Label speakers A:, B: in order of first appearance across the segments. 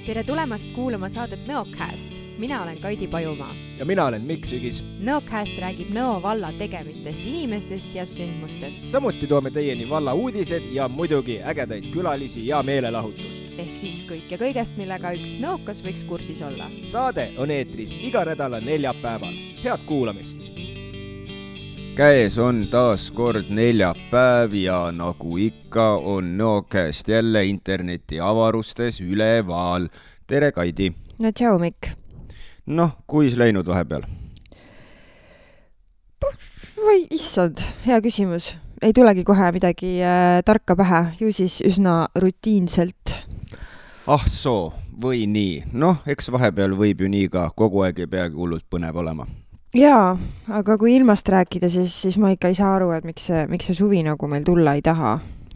A: Tere tulemast kuulama saadet Nõocast. Mina olen Kaidi Pajumaa.
B: Ja mina olen Mikk Sügis.
A: Nõocast räägib Nõo valla tegemistest, inimestest ja sündmustest.
B: Samuti toome teieni valla uudised ja muidugi ägedaid külalisi ja meelelahutust.
A: Ehk siis kõik ja kõigest, millega üks nõokas võiks kursis olla.
B: Saade on eetris iga nädala neljapäeval. Head kuulamist! Käes on taas kord neljapäev ja nagu ikka on Nõocast jälle interneti avarustes üleval. Tere, Kaidi!
A: No tšau, Mikk!
B: Noh, kuis läinud vahepeal?
A: Või issand, hea küsimus. Ei tulegi kohe midagi tarka pähe, ju siis üsna rutiinselt.
B: Ah soo, või nii. Noh, eks vahepeal võib ju nii ka, kogu aeg ei peagi hullult põnev olema.
A: Jaa, aga kui ilmast rääkida, siis ma ikka ei saa aru, et miks see suvi nagu meil tulla ei taha.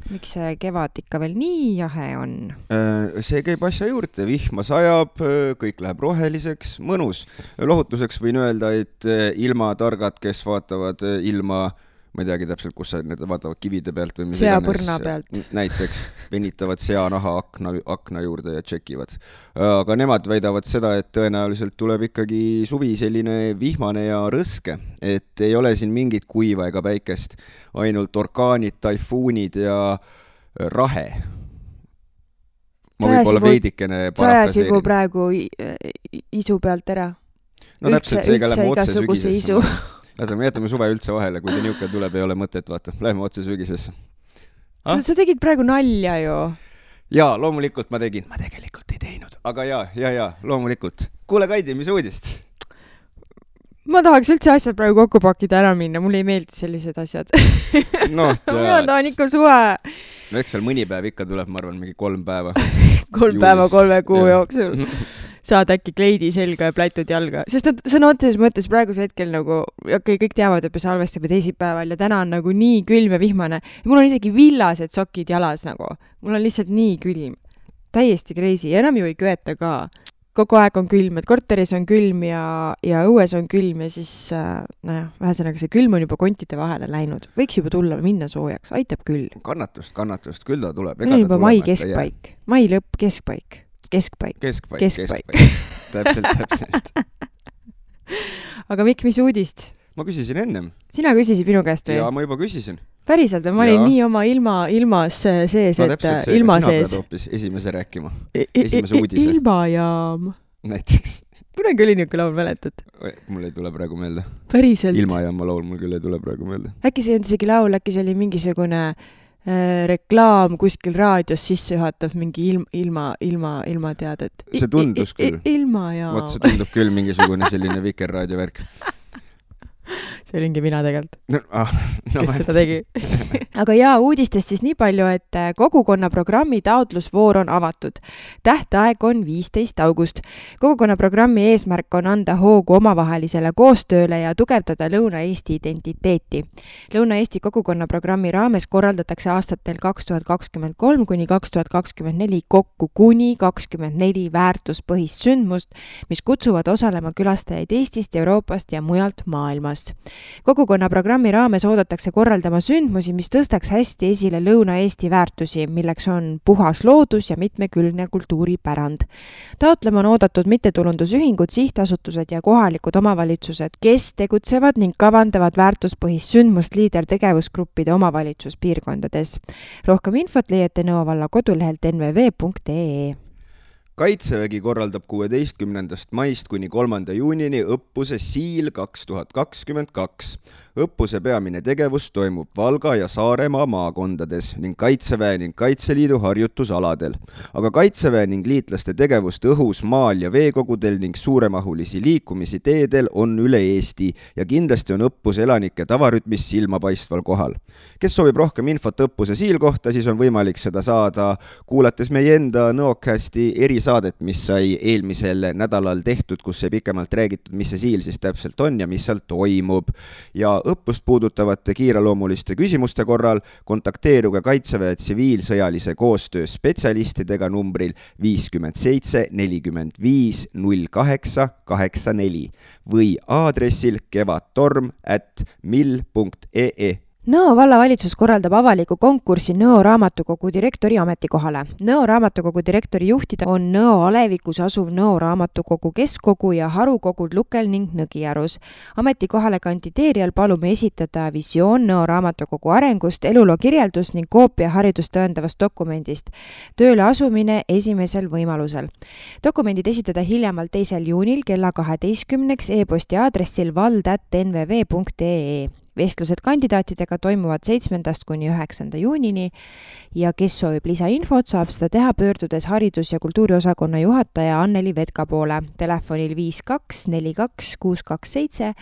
A: Miks see kevad ikka veel nii jahe on?
B: See käib asja juurde, vihma sajab, kõik läheb roheliseks, mõnus. Lohutuseks võin öelda, et ilmatargad, kes vaatavad ilma, ma ei teagi täpselt, kus need vaatavad kivide pealt või mis
A: seapõrna pealt.
B: Näiteks venitavad seanaha akna juurde ja tšekivad. Aga nemad väidavad seda, et tõenäoliselt tuleb ikkagi suvi selline vihmane ja rõske, et ei ole siin mingit kuiva ega päikest, ainult orkaanid, taifuunid ja rahe. Ma võib-olla veidikene
A: parafraseerin. Sajas praegu isu pealt ära.
B: No täpselt seega lähme otse
A: igasuguse isu.
B: Jätame suve üldse vahele, kui ta niuke tuleb, ei ole mõtet, vaata. Lähme otse sügisesse.
A: Sa tegid praegu nalja ju.
B: Jaa, loomulikult ma tegin. Ma tegelikult ei teinud. Aga jaa, loomulikult. Kuule, Kaidi, mis uudist?
A: Ma tahaks üldse asjad praegu kokku pakida ära minna. Mulle ei meeldi sellised asjad.
B: No,
A: ma tahan ikka suve.
B: No eks seal mõni päev ikka tuleb, ma arvan, mingi 3 päeva.
A: 3 päeva 3 kuu jooksul. Saad äkki kleidi selga ja plätud jalga. Sest sõna otseses mõttes praeguse hetkel nagu, kõik teavad, et me salvestame teisipäeval ja täna on nagu nii külm ja vihmane. Ja mul on isegi villased sokid jalas nagu. Mul on lihtsalt nii külm. Täiesti crazy. Ja enam ju ei köeta ka. Kogu aeg on külm, et korteris on külm ja õues on külm ja siis, vähesõnaga see külm on juba kontide vahele läinud. Võiks juba tulla minna soojaks. Aitab küll.
B: Kannatust. Küll ta tuleb.
A: Meil on juba mai keskpaik. Mai lõpp keskpaik. Keskpaik. Täpselt. Aga Mikk, mis uudist?
B: Ma küsisin ennem.
A: Sina küsisid minu käest või?
B: Jaa, ma juba küsisin.
A: Päriselt, ma olin nii oma ilmas sees,
B: no,
A: et ilma sees.
B: Sina pead hoopis esimese rääkima. Esimese uudise.
A: Ilmajaam.
B: Näiteks.
A: Kunagi oli niuke laul, mäletad?
B: Mul ei tule praegu meelde.
A: Päriselt.
B: Ilmajaama laul mul küll ei tule praegu meelde.
A: Äkki see on isegi laul, äkki see oli mingisugune reklaam kuskil raadios sisse juhatav mingi ilma teadet.
B: See tundus küll.
A: Ilmajaam.
B: Vot see tundub küll mingisugune selline Vikerraadio värk.
A: See olingi mina tegelikult.
B: Kes
A: seda tegi. Aga uudistest siis nii palju, et kogukonna programmi taotlusvoor on avatud. Tähtaeg on 15. august. Kogukonna programmi eesmärk on anda hoogu omavahelisele koostööle ja tugevdada Lõuna-Eesti identiteeti. Lõuna-Eesti kogukonna programmi raames korraldatakse aastatel 2023 kuni 2024 kokku kuni 24 väärtuspõhist sündmust, mis kutsuvad osalema külastajaid Eestist, Euroopast ja mujalt maailmast. Kogukonna programmi raames oodatakse korraldama sündmusi, mis tõstaks hästi esile Lõuna-Eesti väärtusi, milleks on puhas loodus ja mitmekülgne kultuuripärand. Taotlema on oodatud mittetulundusühingud, sihtasutused ja kohalikud omavalitsused, kes tegutsevad ning kavandavad väärtuspõhist sündmust liidertegevusgruppide omavalitsuspiirkondades. Rohkem infot leiate Nõo valla kodulehelt nvv.ee.
B: Kaitsevägi korraldab 16. maist kuni 3. juunini õppuse Siil 2022. Õppuse peamine tegevus toimub Valga ja Saaremaa maakondades ning Kaitseväe ning Kaitseliidu harjutusaladel. Aga Kaitseväe ning liitlaste tegevust õhus, maal ja veekogudel ning suuremahulisi liikumisi teedel on üle Eesti ja kindlasti on õppus elanike tavarütmis silmapaistval kohal. Kes soovib rohkem infot õppuse Siil kohta, siis on võimalik seda saada kuulates meie enda Nõocasti erisaadet, mis sai eelmisel nädalal tehtud, kus sai pikemalt räägitud, mis see Siil siis täpselt on ja mis seal toimub. Ja õppust puudutavate kiireloomuliste küsimuste korral kontakteeruge Kaitseväe tsiviilsõjalise koostöö spetsialistidega numbril 57 45 08 84 või aadressil kevadtorm@mil.ee.
A: Nõo vallavalitsus korraldab avaliku konkursi Nõo raamatukogu direktori ametikohale. Nõo raamatukogu direktori juhtida on Nõo alevikus asuv Nõo raamatukogu keskkogu ja harukogud Lukel ning Nõgiarus. Ametikohale kandideerijal palume esitada visioon Nõo raamatukogu arengust, eluloo kirjeldus ning koopia haridust tõendavast dokumendist. Tööle asumine esimesel võimalusel. Dokumendid esitada hiljemalt 2. juunil kella 12 e-posti aadressil vald@nvv.ee. Vestlused kandidaatidega toimuvad 7. kuni 9. juunini ja kes soovib lisainfot, saab seda teha pöördudes haridus- ja kultuuriosakonna juhataja Anneli Vetka poole telefonil 5242 627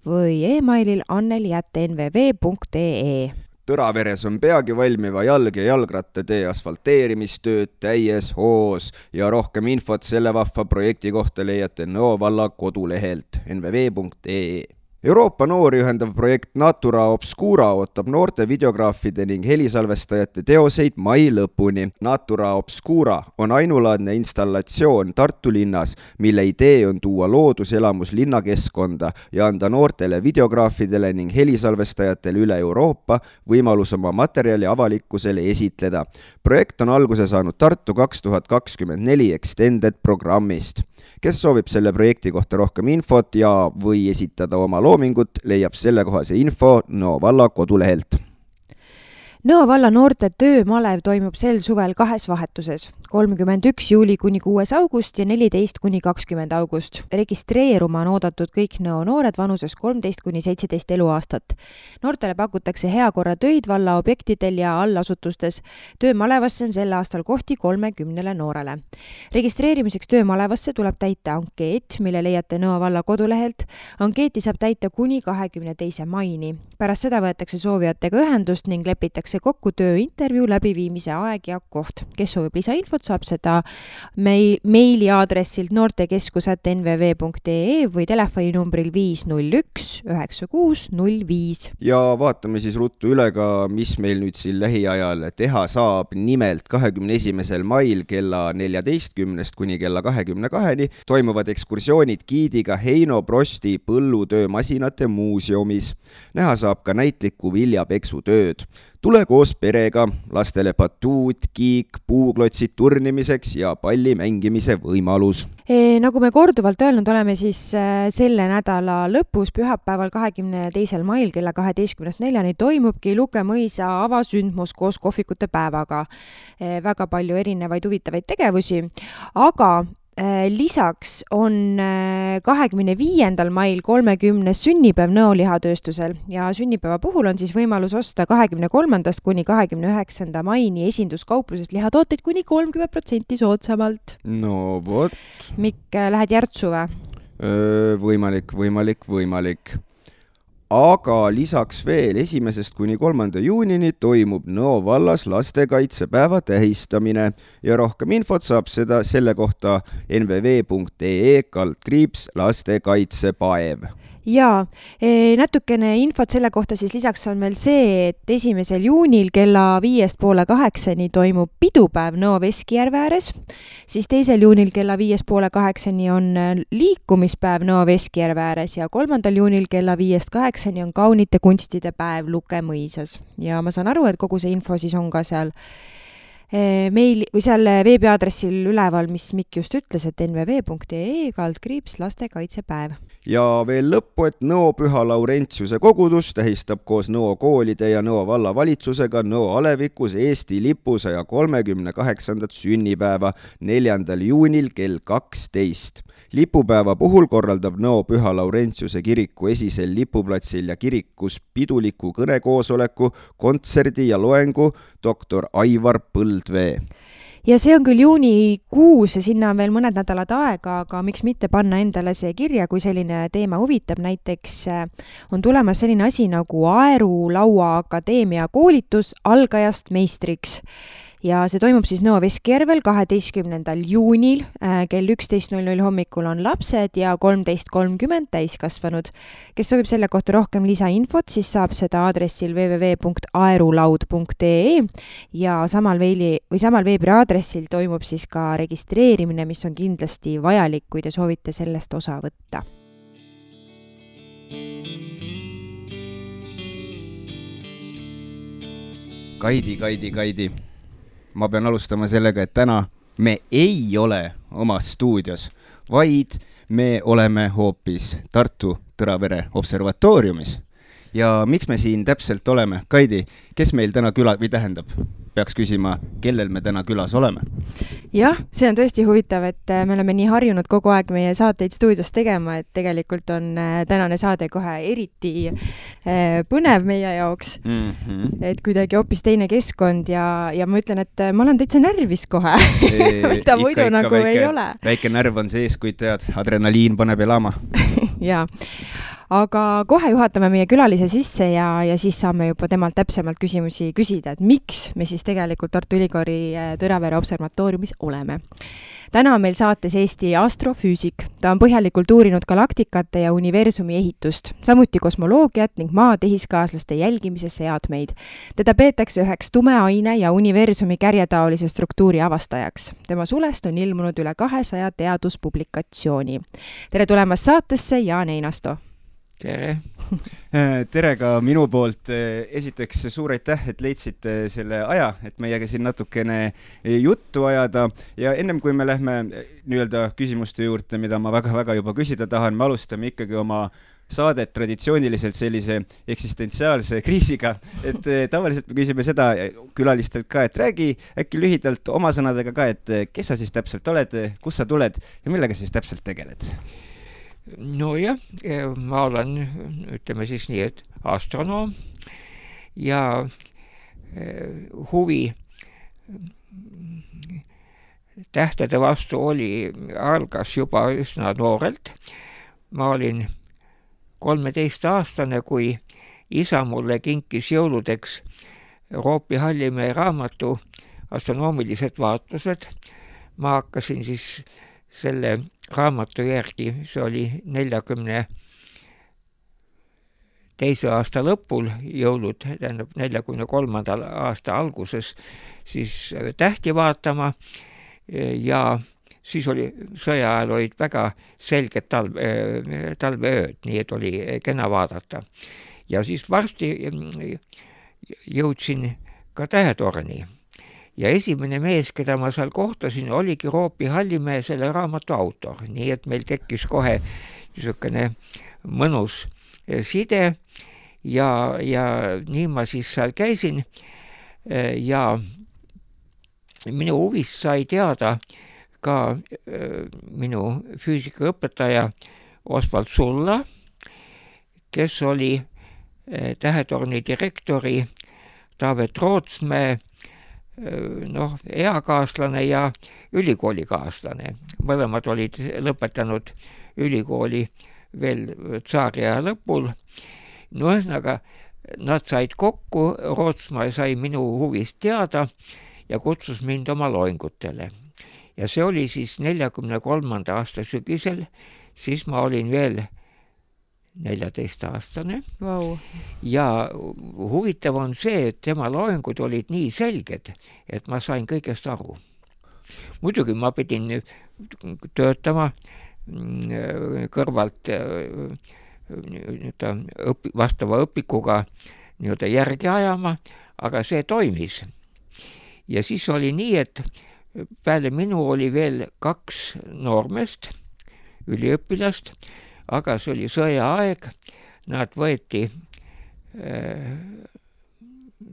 A: või e-mailil anneli@nvv.ee.
B: Tõraveres on peagi valmiva jalg- ja jalgrattatee asfalteerimistööd täies hoos ja rohkem infot selle vahva projekti kohta leiate Nõo valla kodulehelt nvv.ee. Euroopa noori ühendav projekt Natura Obscura ootab noorte videograafide ning helisalvestajate teoseid mai lõpuni. Natura Obscura on ainulaadne installatsioon Tartu linnas, mille idee on tuua looduselamus linnakeskkonda ja anda noortele videograafidele ning helisalvestajatele üle Euroopa võimalus oma materjali avalikkusele esitleda. Projekt on alguse saanud Tartu 2024 Extended programmist. Kes soovib selle projekti kohta rohkem infot ja või esitada oma loomingut, leiab sellekohase info Nõo valla kodulehelt.
A: Nõo valla noorte töömalev toimub sel suvel 2 vahetuses, 31. juuli kuni 6. august ja 14. kuni 20. august. Registreeruma on oodatud kõik Nõo noored vanuses 13 kuni 17 eluaastat. Noortele pakutakse heakorra töid valla objektidel ja allasutustes. Töömalevasse on sel aastal kohti 30 noorele. Registreerimiseks töömalevasse tuleb täita ankeet, mille leiate Nõo valla kodulehelt. Ankeeti saab täita kuni 22. maini. Pärast seda võetakse soovijatega ühendust ning lepitakse kokku tööintervjuu läbiviimise aeg ja koht. Kes soovib lisainfot, saab seda meili aadressilt noortekeskus@nvv.ee või telefoninumbril 501 9605.
B: Ja vaatame siis ruttu üle ka, mis meil nüüd siin lähiajal teha saab. Nimelt 21. mail kella 14 kuni kella 22 toimuvad ekskursioonid giidiga Heino Prosti põllutöömasinate muuseumis. Näha saab ka näitlikku viljapeksutööd. Tule koos perega, lastele batuut, kiik, puuklotsid turnimiseks ja palli mängimise võimalus.
A: Nagu me korduvalt öelnud oleme, siis selle nädala lõpus, pühapäeval 22. mail kella 12-4 toimubki Luke mõisa avasündmus koos kohvikute päevaga. Väga palju erinevaid huvitavaid tegevusi, aga lisaks on 25. mail 30. sünnipäev Nõo lihatööstusel ja sünnipäeva puhul on siis võimalus osta 23. kuni 29. maini esinduskauplusest lihatooteid kuni 30% soodsamalt.
B: No vot.
A: Mikk, lähed Järtsu või?
B: Võimalik. Aga lisaks veel 1. kuni 3. juunini toimub Nõo vallas lastekaitsepäeva tähistamine ja rohkem infot saab selle kohta nvv.ee/lastekaitsepäev.
A: Jaa, natukene infot selle kohta siis lisaks on veel see, et 1. juunil kella 5:30 toimub pidupäev Nõo Veskijärve ääres, siis 2. juunil kella 5:30 on liikumispäev Nõo Veskijärve ääres ja 3. juunil kella 5:08 on kaunite kunstide päev Luke mõisas. Ja ma saan aru, et kogu see info siis on ka seal meili või seal veebiaadressil üleval, mis Mikk just ütles, et nvv.ee/lastekaitsepäev.
B: Ja veel lõppu, et Nõo Püha Laurentiuse kogudus tähistab koos Nõo koolide ja Nõo vallavalitsusega Nõo alevikus Eesti lipu 138. sünnipäeva 4. juunil kell 12. Lipupäeva puhul korraldab Nõo Püha Laurentiuse kiriku esisel lipuplatsil ja kirikus piduliku kõnekoosoleku, kontserdi ja loengu doktor Aivar Põldvee.
A: Ja see on küll juunikuus ja sinna on veel mõned nädalad aega, aga miks mitte panna endale see kirja, kui selline teema huvitab. Näiteks on tulemas selline asi nagu Aeru Laua Akadeemia koolitus algajast meistriks. Ja see toimub siis Nõo Veskijärvel 12. juunil kell 11:00 hommikul on lapsed ja 13:30 täiskasvanud. Kes soovib selle kohta rohkem lisainfot, siis saab seda aadressil www.aerulaud.ee ja samal veebiaadressil toimub siis ka registreerimine, mis on kindlasti vajalik, kui te soovite sellest osa võtta.
B: Kaidi. Ma pean alustama sellega, et täna me ei ole omas stuudios, vaid me oleme hoopis Tartu Tõravere observatooriumis. Ja miks me siin täpselt oleme? Kaidi, kes meil täna peaks küsima, kellel me täna külas oleme?
A: Jah, see on tõesti huvitav, et me oleme nii harjunud kogu aeg meie saateid stuudios tegema, et tegelikult on tänane saade kohe eriti põnev meie jaoks. Et kuidagi hoopis teine keskkond ja ma ütlen, et ma olen täitsa närvis kohe. Mida muidu nagu ei ole.
B: Väike närv on sees, kui tead, adrenaliin paneb elama.
A: Jaa. Aga kohe juhatame meie külalise sisse ja siis saame juba temalt täpsemalt küsimusi küsida, et miks me siis tegelikult Tartu Ülikooli Tõravere observatooriumis oleme. Täna on meil saates Eesti astrofüüsik. Ta on põhjalikult uurinud galaktikate ja universumi ehitust, samuti kosmoloogiat ning maa tehiskaaslaste jälgimise seadmeid. Teda peetakse üheks tume aine ja universumi kärjetaolise struktuuri avastajaks. Tema sulest on ilmunud üle 200 teaduspublikatsiooni. Tere tulemast saatesse, Jaan Einasto!
C: Tere!
B: Tere ka minu poolt. Esiteks suur aitäh, et leidsite selle aja, et meiega siin natukene juttu ajada. Ja ennem kui me lähme nii-öelda küsimuste juurde, mida ma väga-väga juba küsida tahan, me alustame ikkagi oma saadet traditsiooniliselt sellise eksistentsiaalse kriisiga. Et tavaliselt me küsime seda külalistelt ka, et räägi äkki lühidalt oma sõnadega ka, et kes sa siis täpselt oled, kus sa tuled ja millega siis täpselt tegeled?
C: No jah, ma olen, ütleme siis nii, et astronoom ja huvi tähtede vastu algas juba üsna noorelt. Ma olin 13-aastane, kui isa mulle kinkis jõuludeks Roopi Hallimäe raamatu Astronoomilised vaatlused. Ma hakkasin siis selle raamatu järgi, see oli 42. aasta lõpul jõulud, tähendab 43. aasta alguses, siis tähti vaatama ja siis sõja ajal olid väga selged talveööd, nii et oli kena vaadata. Ja siis varsti jõudsin ka Tähetorni. Ja esimene mees, keda ma seal kohtasin, oligi Roopi Hallimäe selle raamatu autor. Nii et meil tekkis kohe niisugune mõnus side ja nii ma siis seal käisin ja minu huvist sai teada ka minu füüsikaõpetaja Osvald Sulla, kes oli Tähetorni direktori Taavet Rootsmäe eakaaslane ja ülikoolikaaslane. Mõlemad olid lõpetanud ülikooli veel tsaariaja lõpul. No ühesõnaga, nad said kokku, Rootsmaa sai minu huvist teada ja kutsus mind oma loengutele. Ja see oli siis 43. aasta sügisel, siis ma olin veel 14-aastane.
A: Wow.
C: Ja huvitav on see, et tema loengud olid nii selged, et ma sain kõigest aru. Muidugi ma pidin töötama kõrvalt vastava õpikuga järgi ajama, aga see toimis. Ja siis oli nii, et peale minu oli veel 2 noormest, üliõpilast, aga see oli sõjaaeg, nad võeti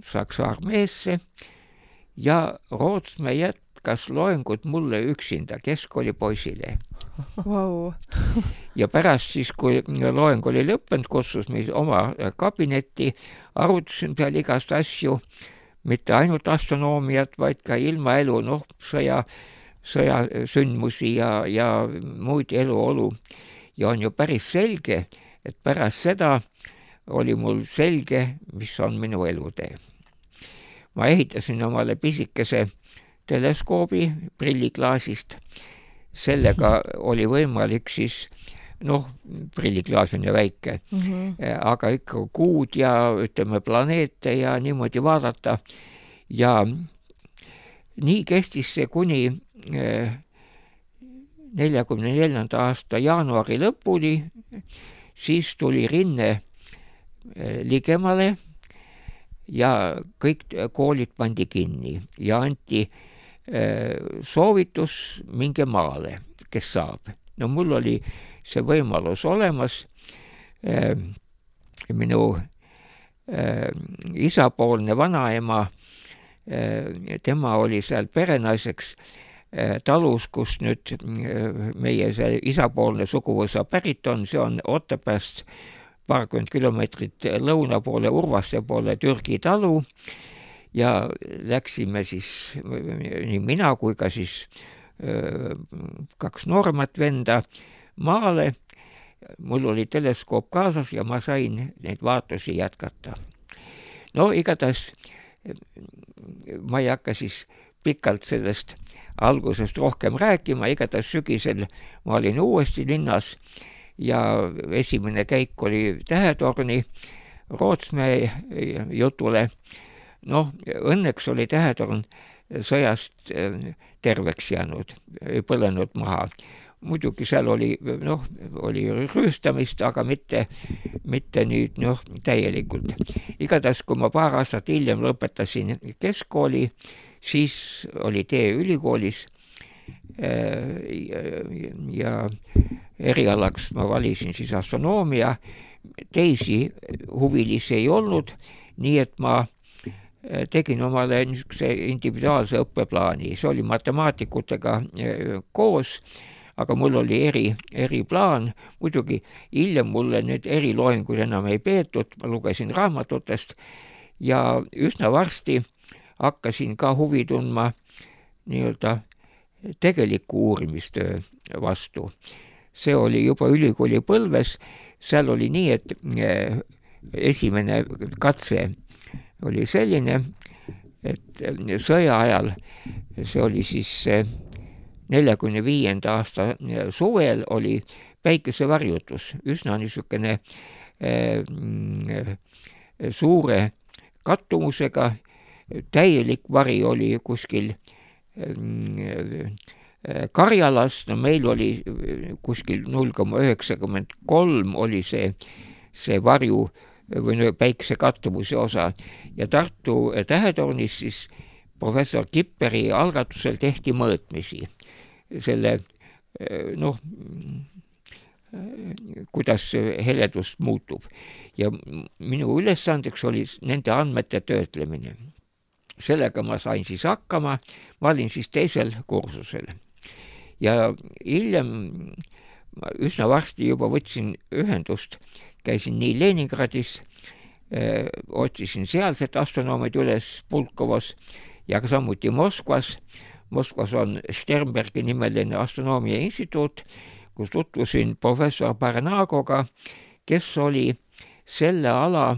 C: Saksa armeesse ja Rootsmäe jätkas loengut mulle üksinda keskkoolipoisile.
A: Wow.
C: Ja pärast siis, kui loeng oli lõppenud, kutsus meid oma kabinetti, arutasin seal igast asju, mitte ainult astronoomiat, vaid ka ilmaelu, sõja sündmusi ja muid eluolu. Ja on ju päris selge, et pärast seda oli mul selge, mis on minu elutee. Ma ehitasin omale pisikese teleskoobi prilliklaasist. Sellega oli võimalik siis, prilliklaas on ju väike, aga ikka kuud ja ütleme planeete ja niimoodi vaadata. Ja nii kestis see kuni 44. aasta jaanuari lõpuni, siis tuli rinne ligemale ja kõik koolid pandi kinni ja anti soovitus minge maale, kes saab. No mul oli see võimalus olemas. Minu isapoolne vanaema, tema oli seal perenaiseks talus, kus nüüd meie see isapoolne suguvõsa pärit on, see on Otepääst paarkümmend kilomeetrit lõuna poole, Urvaste poole Türgi talu ja läksime siis nii mina kui ka siis kaks nooremat venda maale. Mul oli teleskoop kaasas ja ma sain neid vaatusi jätkata. No igatahes ma ei hakka siis pikalt sellest algusest rohkem rääkima, igatahes sügisel ma olin uuesti linnas ja esimene käik oli Tähetorni Rootsmäe jutule. Noh, õnneks oli Tähetorn sõjast terveks jäänud, ei põlenud maha. Muidugi seal oli rüüstamist, aga mitte nüüd täielikult. Igatahes, kui ma paar aastat hiljem lõpetasin keskkooli, siis oli tee ülikoolis ja erialaks ma valisin siis astronoomia. Teisi huvilisi ei olnud, nii et ma tegin omale niisuguse individuaalse õppeplaani. See oli matemaatikutega koos, aga mul oli eriplaan. Muidugi hiljem mulle nüüd eriloenguid enam ei peetud, ma lugesin raamatutest ja üsna varsti hakkasin ka huvi tundma nii-öelda tegeliku uurimistöö vastu. See oli juba ülikooli põlves, seal oli nii, et esimene katse oli selline, et sõja ajal, see oli siis 45. aasta suvel, oli päikesevarjutus, üsna niisugune suure kattumusega, täielik vari oli kuskil Karjalas, no meil oli kuskil 0,93 oli see varju või päikse kattumuse osa ja Tartu Tähetornis siis professor Kipperi algatusel tehti mõõtmisi selle, kuidas heledus muutub ja minu ülesandeks oli nende andmete töötlemine. Sellega ma sain siis hakkama, ma olin siis teisel kursusel. Ja hiljem üsna varsti juba võtsin ühendust, käisin nii Leningradis, otsisin sealset astronoomid üles Pulkovas ja samuti Moskvas. Moskvas on Sternbergi nimeline astronoomia instituut, kus tutvusin professor Barnagoga, kes oli selle ala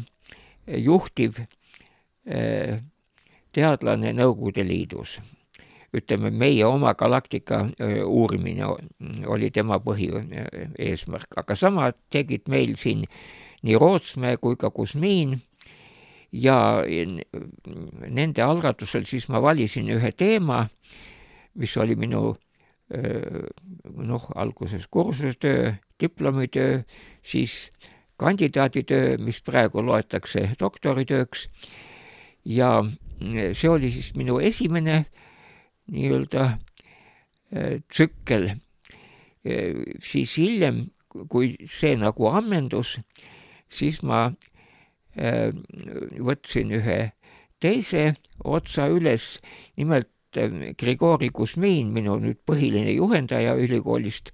C: juhtiv teadlane Nõukogude Liidus. Ütleme, meie oma galaktika uurimine oli tema põhieesmärk, aga sama tegid meil siin nii Rootsmäe kui ka Kusmiin ja nende algatusel siis ma valisin ühe teema, mis oli minu alguses kursustöö, diplomitöö, siis kandidaaditöö, mis praegu loetakse doktoritööks ja see oli siis minu esimene nii-öelda tsükkel. Siis hiljem, kui see nagu ammendus, siis ma võtsin ühe teise otsa üles, nimelt Grigori Kusmiin, minu nüüd põhiline juhendaja ülikoolist,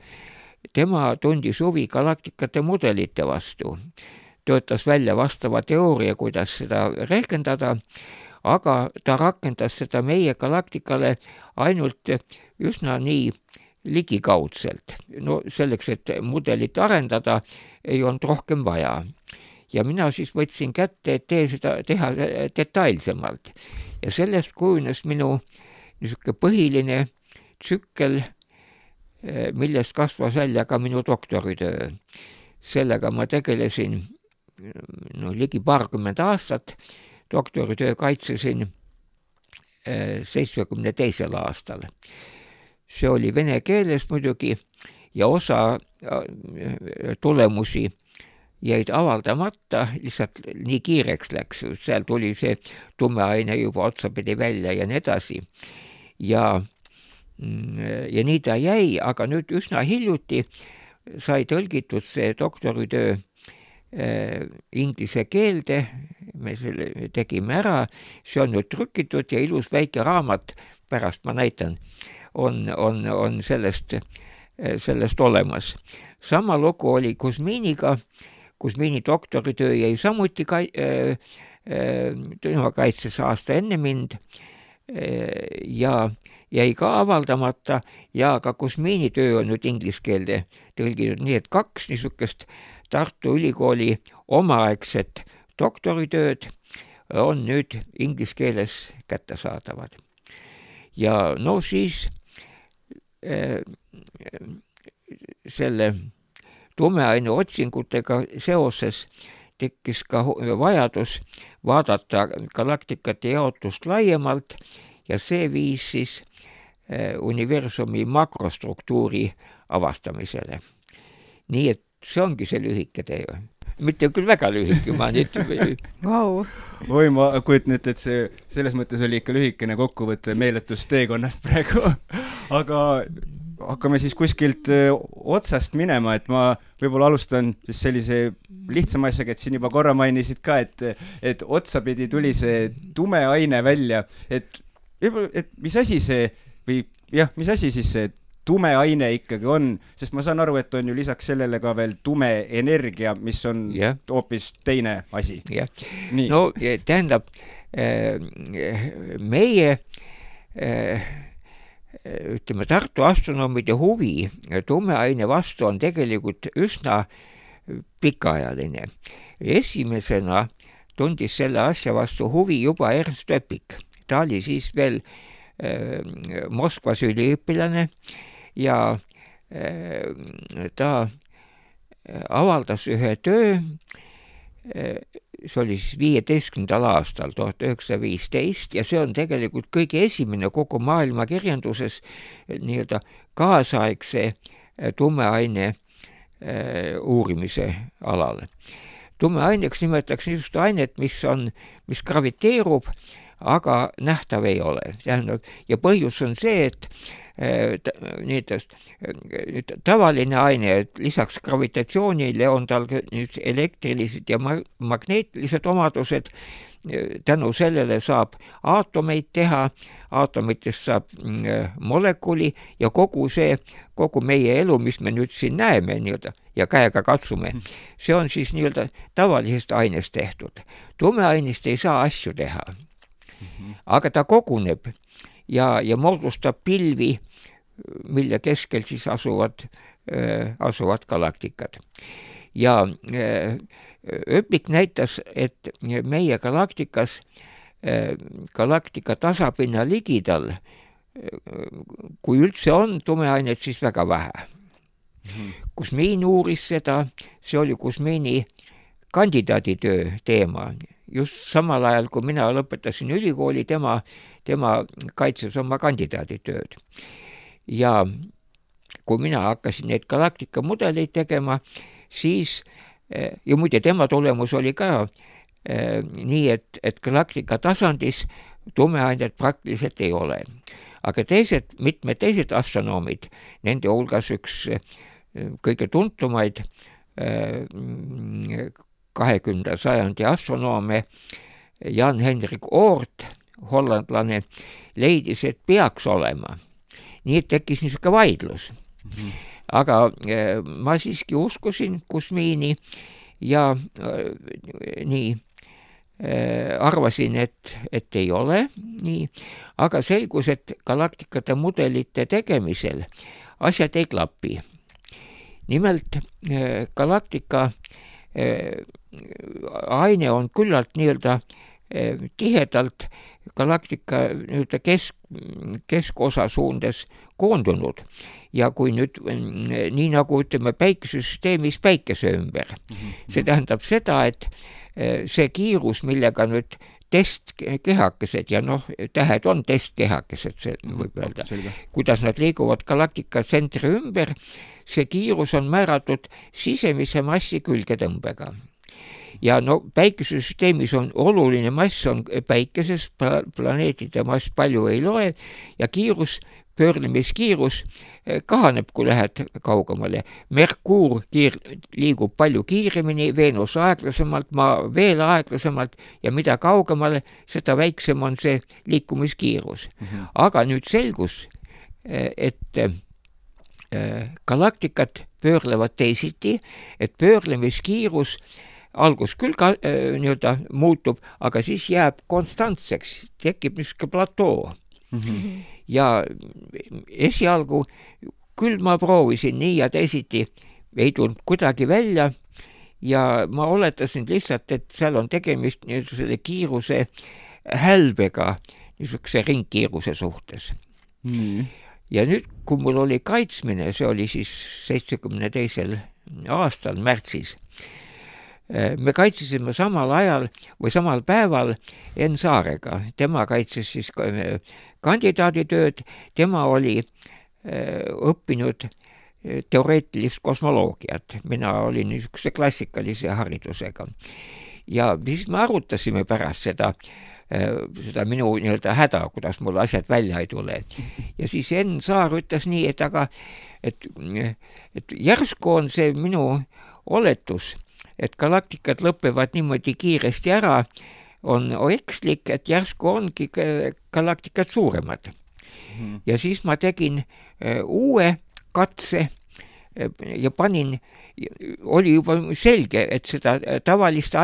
C: tema tundis huvi galaktikate mudelite vastu. Töötas välja vastava teooria, kuidas seda rehkendada, aga ta rakendas seda meie galaktikale ainult üsna nii ligikaudselt. No selleks, et mudelit arendada, ei olnud rohkem vaja. Ja mina siis võtsin kätte, et teha detailsemalt. Ja sellest kujunes minu niisugune põhiline tsükkel, millest kasvas välja ka minu doktoritöö. Sellega ma tegelesin ligi 20 aastat, doktoritöö kaitsesin 72. aastal. See oli vene keeles muidugi ja osa tulemusi jäid avaldamata, lihtsalt nii kiireks läks, seal tuli see tume aine juba otsapidi välja ja nii edasi. Ja nii ta jäi, aga nüüd üsna hiljuti sai tõlgitud see doktoritöö inglise keelde, me selle tegime ära, see on nüüd trükitud ja ilus väike raamat, pärast ma näitan, on sellest olemas. Sama lugu oli Kuzminiga, Kuzmini doktoritöö jäi samuti kaitses aasta enne mind ja jäi ka avaldamata ja ka Kuzmini töö on nüüd inglise keelde tõlgitud, nii et 2 niisugust Tartu Ülikooli omaaegset doktoritööd on nüüd inglise keeles kättesaadavad. Ja no siis selle tumeaine otsingutega seoses tekkis ka vajadus vaadata galaktikate jaotust laiemalt ja see viis siis universumi makrostruktuuri avastamisele. Nii et see ongi see lühike tee. Mitte küll väga lühike, ma nüüd...
A: Wow.
B: Oi, ma kujutan ette, et see selles mõttes oli ikka lühikene kokkuvõte meeletust teekonnast praegu. Aga hakkame siis kuskilt otsast minema, et ma võib-olla alustan siis sellise lihtsama asjaga, et siin juba korra mainisid ka, et otsapidi tuli see tume aine välja, et mis asi see või jah, mis asi siis see tume aine ikkagi on, sest ma saan aru, et on ju lisaks sellele ka veel tume energia, mis on hoopis teine asi.
C: No tähendab, meie ütleme, Tartu astronoomide huvi tumeaine vastu on tegelikult üsna pikaajaline. Esimesena tundis selle asja vastu huvi juba Ernst Öpik. Ta oli siis veel Moskvas üliõpilane ja ta avaldas ühe töö, see oli siis 15. aastal, 1915, ja see on tegelikult kõige esimene kogu maailma kirjanduses nii-öelda kaasaegse tumeaine uurimise alal. Tumeaineks nimetatakse niisugust ainet, mis graviteerub, aga nähtav ei ole. Ja põhjus on see, et tavaline aine, et lisaks gravitatsioonile on tal elektrilised ja magneetilised omadused, tänu sellele saab aatomeid teha, aatomitest saab molekuli ja kogu meie elu, mis me nüüd siin näeme nii-öelda, ja käega katsume, see on siis nii-öelda tavalisest ainest tehtud. Tumeainest ei saa asju teha, aga ta koguneb ja moodustab pilvi, mille keskel siis asuvad galaktikad. Ja Öpik näitas, et meie galaktikas, galaktika tasapinna ligidal, kui üldse on tumeainet, siis väga vähe. Kuzmin uuris seda, see oli Kuzmini kandidaaditöö teema. Just samal ajal, kui mina lõpetasin ülikooli, tema kaitses oma kandidaaditööd. Ja kui mina hakkasin neid galaktika mudeleid tegema, siis, ja muide tema tulemus oli ka nii, et galaktika tasandis tumeainet praktiliselt ei ole. Aga mitmed teised astronoomid, nende hulgas üks kõige tuntumaid 20. sajandi astronoome Jan-Henrik Oort, hollandlane, leidis, et peaks olema. Nii et tekkis niisugune vaidlus. Aga ma siiski uskusin Kuzmini ja nii arvasin, et ei ole nii, aga selgus, et galaktikate mudelite tegemisel asjad ei klapi. Nimelt galaktika aine on küllalt nii-öelda tihedalt galaktika keskosa suundes koondunud ja kui nüüd nii nagu ütleme päikesesüsteemis päikese ümber, see tähendab seda, et see kiirus, millega nüüd testkehakesed ja noh, tähed on testkehakesed, see võib öelda. Kuidas nad liiguvad galaktika tsentri ümber, see kiirus on määratud sisemise massi külgetõmbega. Ja no päikesesüsteemis on oluline mass on päikeses, planeetide mass palju ei loe ja pöörlemiskiirus kahaneb, kui lähed kaugemale. Merkuur liigub palju kiiremini, Veenus aeglasemalt, Maa veel aeglasemalt ja mida kaugemale, seda väiksem on see liikumiskiirus. Aga nüüd selgus, et galaktikad pöörlevad teisiti, et pöörlemiskiirus algus küll ka nii-öelda muutub, aga siis jääb konstantseks, tekib niisugune platoo. Ja esialgu küll ma proovisin nii ja teisiti, ei tulnud kuidagi välja ja ma oletasin lihtsalt, et seal on tegemist niisuguse kiiruse hälbega, niisuguse ringkiiruse suhtes. Ja nüüd, kui mul oli kaitsmine, see oli siis 72. aastal märtsis, me kaitsesime samal ajal või samal päeval Enn Saarega. Tema kaitses siis kandidaaditööd, tema oli õppinud teoreetilist kosmoloogiat. Mina olin niisuguse klassikalise haridusega. Ja siis me arutasime pärast seda minu nii-öelda häda, kuidas mul asjad välja ei tule. Ja siis Enn Saar ütles nii, et järsku on see minu oletus, et galaktikad lõpevad niimoodi kiiresti ära, on ekslik, et järsku ongi galaktikad suuremad. Ja siis ma tegin uue katse ja oli juba selge, et seda tavalise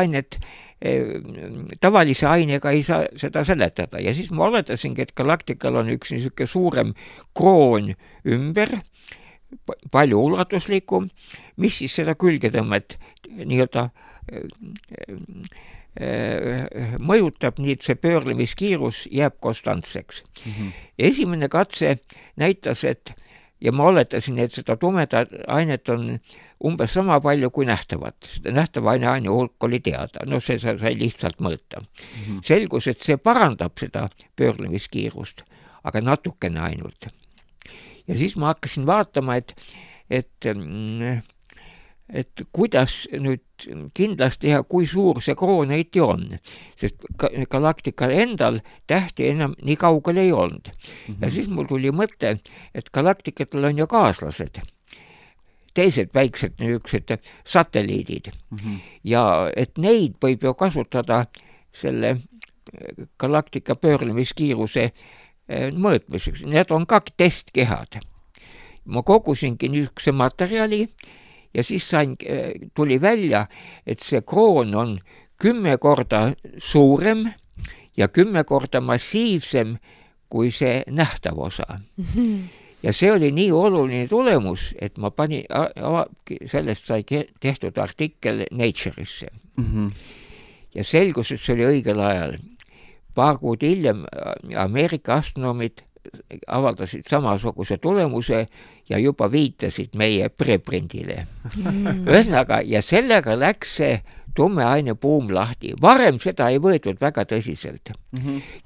C: ainega ei saa seda seletada. Ja siis ma oletasingi, et galaktikal on üks niisugune suurem kroon ümber, palju ulatuslikum, mis siis seda külgetõmmet nii-öelda mõjutab, nii et see pöörlemiskiirus jääb konstantseks. Esimene katse näitas, ja ma oletasin, et seda tumedat ainet on umbes sama palju kui nähtavat. Nähtava aine hulk oli teada, no see sai lihtsalt mõõta. Selgus, et see parandab seda pöörlemiskiirust, aga natukene ainult. Ja siis ma hakkasin vaatama, et kuidas nüüd kindlasti teha, kui suur see kroon õiti on, sest galaktikal endal tähti enam nii kaugel ei olnud. Ja siis mul tuli mõte, et galaktikatel on ju kaaslased, teised väiksed niisugused satelliidid ja et neid võib ju kasutada selle galaktika pöörlemiskiiruse mõõtmiseks. Need on ka testkehad. Ma kogusingi niisuguse materjali ja siis tuli välja, et see kroon on 10 korda suurem ja 10 korda massiivsem kui see nähtav osa. Ja see oli nii oluline tulemus, et ma sellest sai tehtud artikkel Nature'isse. Ja selgus, et see oli õigel ajal. Paar kuud hiljem Ameerika astronoomid avaldasid samasuguse tulemuse ja juba viitasid meie preprindile. Ühesõnaga, ja sellega läks see tumeaine buum lahti. Varem seda ei võetud väga tõsiselt.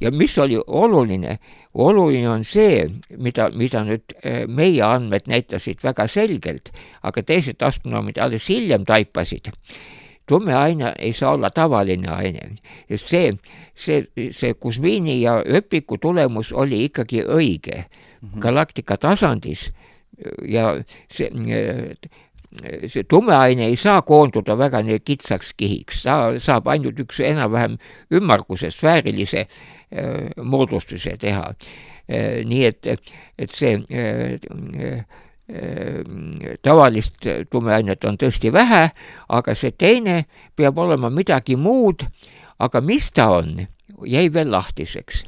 C: Ja mis oli oluline? Oluline on see, mida nüüd meie andmed näitasid väga selgelt, aga teised astronoomid alles hiljem taipasid. Tumeaine ei saa olla tavaline aine. See Kuzmini ja Öpiku tulemus oli ikkagi õige galaktika tasandis ja see tumeaine ei saa koonduda väga kitsaks kihiks. Ta saab ainult üks enam-vähem ümmarguse sfäärilise moodustuse teha. Nii et see tavalist tumeainet on tõesti vähe, aga see teine peab olema midagi muud, aga mis ta on, jäi veel lahtiseks.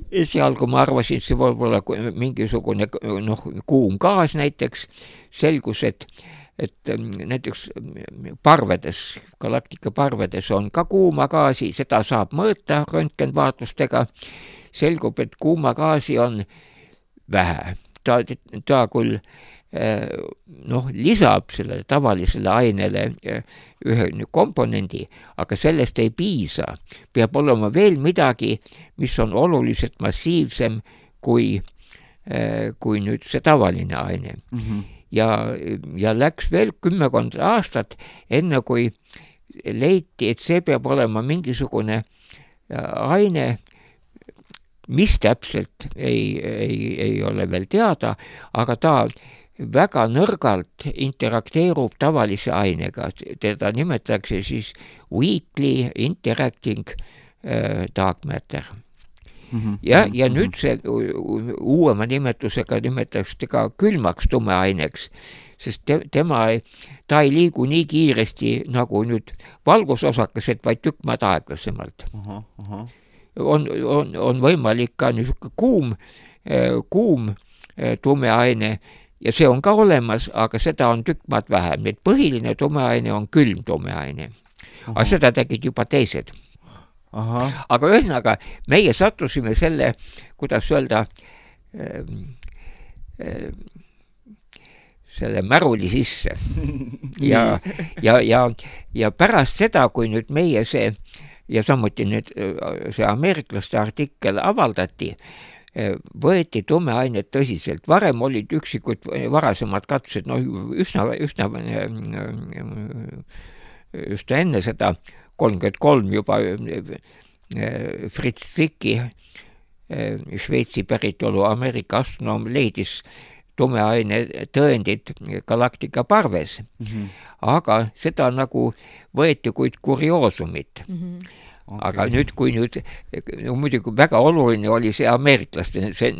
C: Esialgu ma arvasin, see võib olla mingisugune kuum gaas näiteks, selgus, et näiteks parvedes, galaktika parvedes on ka kuuma gaasi, seda saab mõõta röntgenvaatlustega, selgub, et kuuma gaasi on vähe. Ta küll lisab sellele tavalisele ainele ühe komponendi, aga sellest ei piisa. Peab olema veel midagi, mis on oluliselt massiivsem kui nüüd see tavaline aine. Ja läks veel 10 aastat, enne kui leiti, et see peab olema mingisugune aine, mis täpselt ei ole veel teada, aga ta väga nõrgalt interakteerub tavalise ainega. Teda nimetatakse siis weakly interacting dark matter. Ja nüüd see uuema nimetusega nimetatakse ka külmaks tumeaineks, sest ta ei liigu nii kiiresti nagu nüüd valgusosakesed, vaid tükk maad aeglasemalt. On võimalik ka niisugune kuum tumeaine ja see on ka olemas, aga seda on tükk maad vähem. Need põhiline tumeaine on külm tumeaine. Aga seda tegid juba teised. Aga ühesõnaga, meie sattusime selle, kuidas öelda, selle märuli sisse. Ja pärast seda, kui nüüd meie see, ja samuti nüüd see ameeriklaste artikkel avaldati, võeti tumeainet tõsiselt. Varem olid üksikud varasemad katsed, üsna enne seda 33 juba Fritz Zwicky, Šveitsi päritolu Ameerika astronoom, leidis tumeaine tõendid galaktika parves. Aga seda nagu võeti kuid kurioosumit. Aga nüüd, kui muidugi väga oluline oli see ameeriklaste, see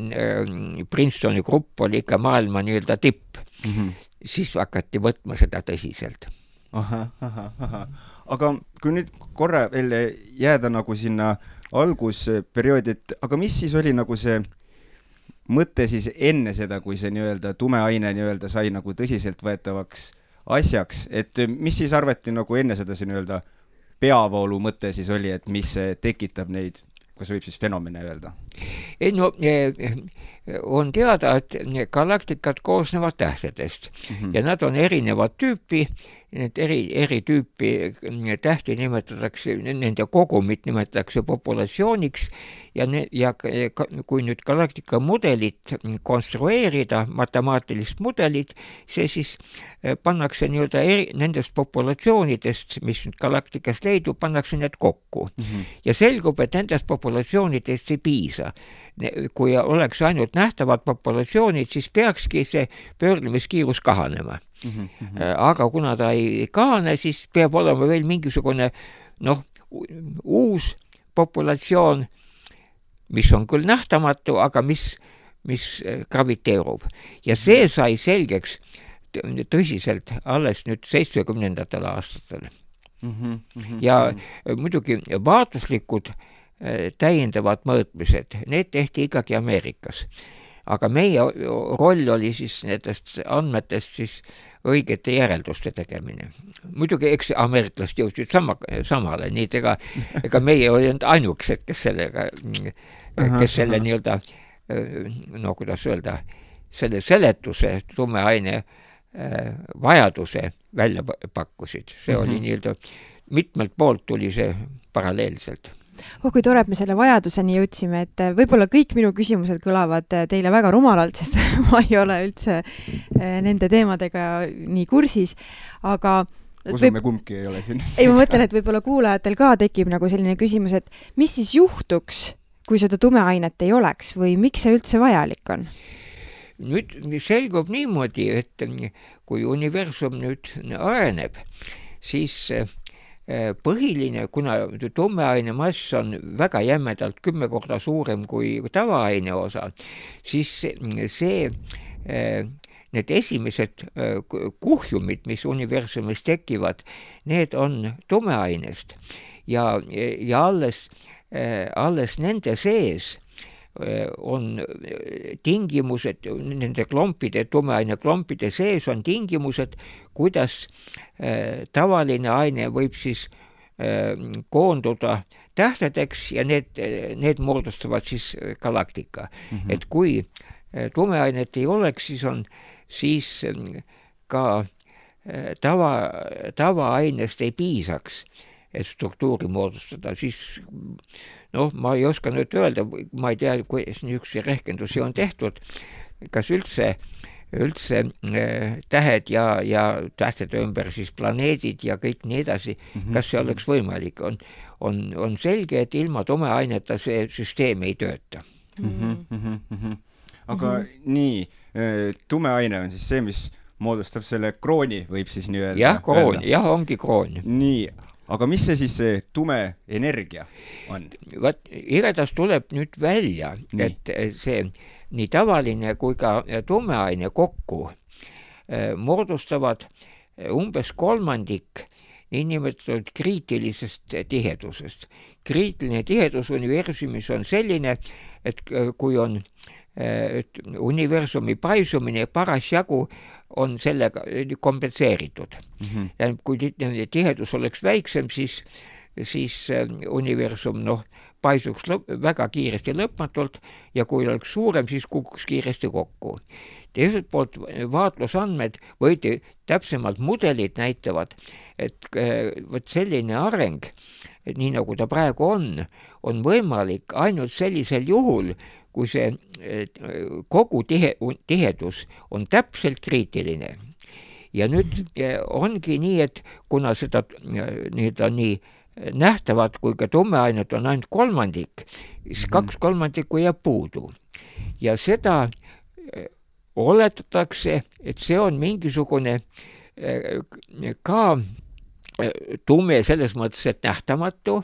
C: Princetoni grupp oli ikka maailma nii-öelda tipp, siis hakati võtma seda tõsiselt.
B: Aga kui nüüd korra veel jääda nagu sinna algusperioodi, aga mis siis oli nagu see mõte siis enne seda, kui see nii-öelda tumeaine nii-öelda sai nagu tõsiselt võetavaks asjaks, et mis siis arvati nagu enne seda see nii-öelda peavoolu mõte siis oli, et mis tekitab neid, kas võib siis fenomene öelda?
C: On teada, et galaktikad koosnevad tähtedest ja nad on erinevat tüüpi. Need eri tüüpi tähti nimetatakse, nende kogumit nimetatakse populatsiooniks ja kui nüüd galaktika mudelit konstrueerida, matemaatilist mudelit, see siis pannakse nii-öelda nendest populatsioonidest, mis galaktikas leidub, pannakse need kokku. Ja selgub, et nendest populatsioonidest ei piisa. Kui oleks ainult nähtavad populatsioonid, siis peakski see pöörlemiskiirus kahanema. Aga kuna ta ei kahane, siis peab olema veel mingisugune uus populatsioon, mis on küll nähtamatu, aga mis graviteerub. Ja see sai selgeks tõsiselt alles nüüd 70. aastatel. Ja muidugi vaatluslikud täiendavad mõõtmised, need tehti ikkagi Ameerikas. Aga meie roll oli siis nendest andmetest siis õigete järelduste tegemine. Muidugi eks ameeriklased jõudsid samale, nii ega meie olid ainukesed, kes selle nii-öelda, kuidas öelda, selle seletuse tumeaine vajaduse välja pakkusid. See oli nii-öelda, mitmelt poolt tuli see paralleelselt.
A: Kui tore, et me selle vajaduseni jõudsime, et võib-olla kõik minu küsimused kõlavad teile väga rumalalt, sest ma ei ole üldse nende teemadega nii kursis, aga
B: usume kumbki ei ole siin.
A: Ei, ma mõtlen, et võib-olla kuulajatel ka tekib nagu selline küsimus, et mis siis juhtuks, kui seda tumeainet ei oleks või miks see üldse vajalik on?
C: Nüüd selgub niimoodi, et kui universum nüüd areneb, siis põhiline, kuna tumeaine mass on väga jämedalt 10 korda suurem kui tavaaine osa, siis need esimesed kuhjumid, mis universumis tekivad, need on tumeainest ja alles nende sees on tingimused, nende klompide, tumeaine klompide sees on tingimused, kuidas tavaline aine võib siis koonduda tähtedeks ja need moodustavad siis galaktika. Et kui tumeainet ei oleks, siis ka tavaainest ei piisaks, et struktuuri moodustada, siis ma ei oska nüüd öelda, ma ei tea, kuidas niisuguse rehkendusi on tehtud, kas üldse tähed ja tähtede ümber siis planeedid ja kõik nii edasi, kas see oleks võimalik. On selge, et ilma tumeaineta see süsteem ei tööta.
B: Aga nii, tumeaine on siis see, mis moodustab selle krooni, võib siis nii öelda?
C: Jah, kroon, jah, ongi kroon.
B: Nii, aga mis see siis see tume energia on?
C: Igatahes tuleb nüüd välja, et see nii tavaline kui ka tumeaine kokku moodustavad umbes kolmandik niinimetatud kriitilisest tihedusest. Kriitiline tihedus universumis on selline, et kui on universumi paisumine parasjagu on sellega kompenseeritud. Ja kui tihedus oleks väiksem, siis universum paisuks väga kiiresti lõpmatult ja kui oleks suurem, siis kukuks kiiresti kokku. Teiselt poolt vaatlusandmed või täpsemalt mudelid näitavad, et võt selline areng, nii nagu ta praegu on võimalik ainult sellisel juhul, kui see kogu tihedus on täpselt kriitiline. Ja nüüd ongi nii, et kuna seda nii nähtavad kui ka tumeainet on ainult kolmandik, siis 2/3 jääb puudu. Ja seda oletatakse, et see on mingisugune ka tume selles mõttes, et nähtamatu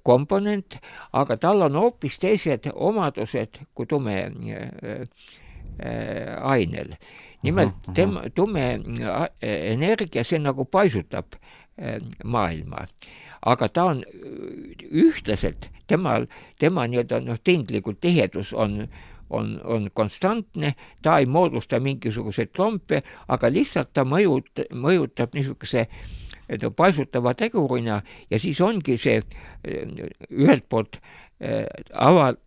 C: komponent, aga tal on hoopis teised omadused kui tume ainel. Nimelt tume energia, see nagu paisutab maailma, aga ta on ühtlaselt, tema nii-öelda tinglikult tihedus on konstantne, ta ei moodusta mingisuguseid klompe, aga lihtsalt ta mõjutab niisuguse paisutava tegurina ja siis ongi see ühelt poolt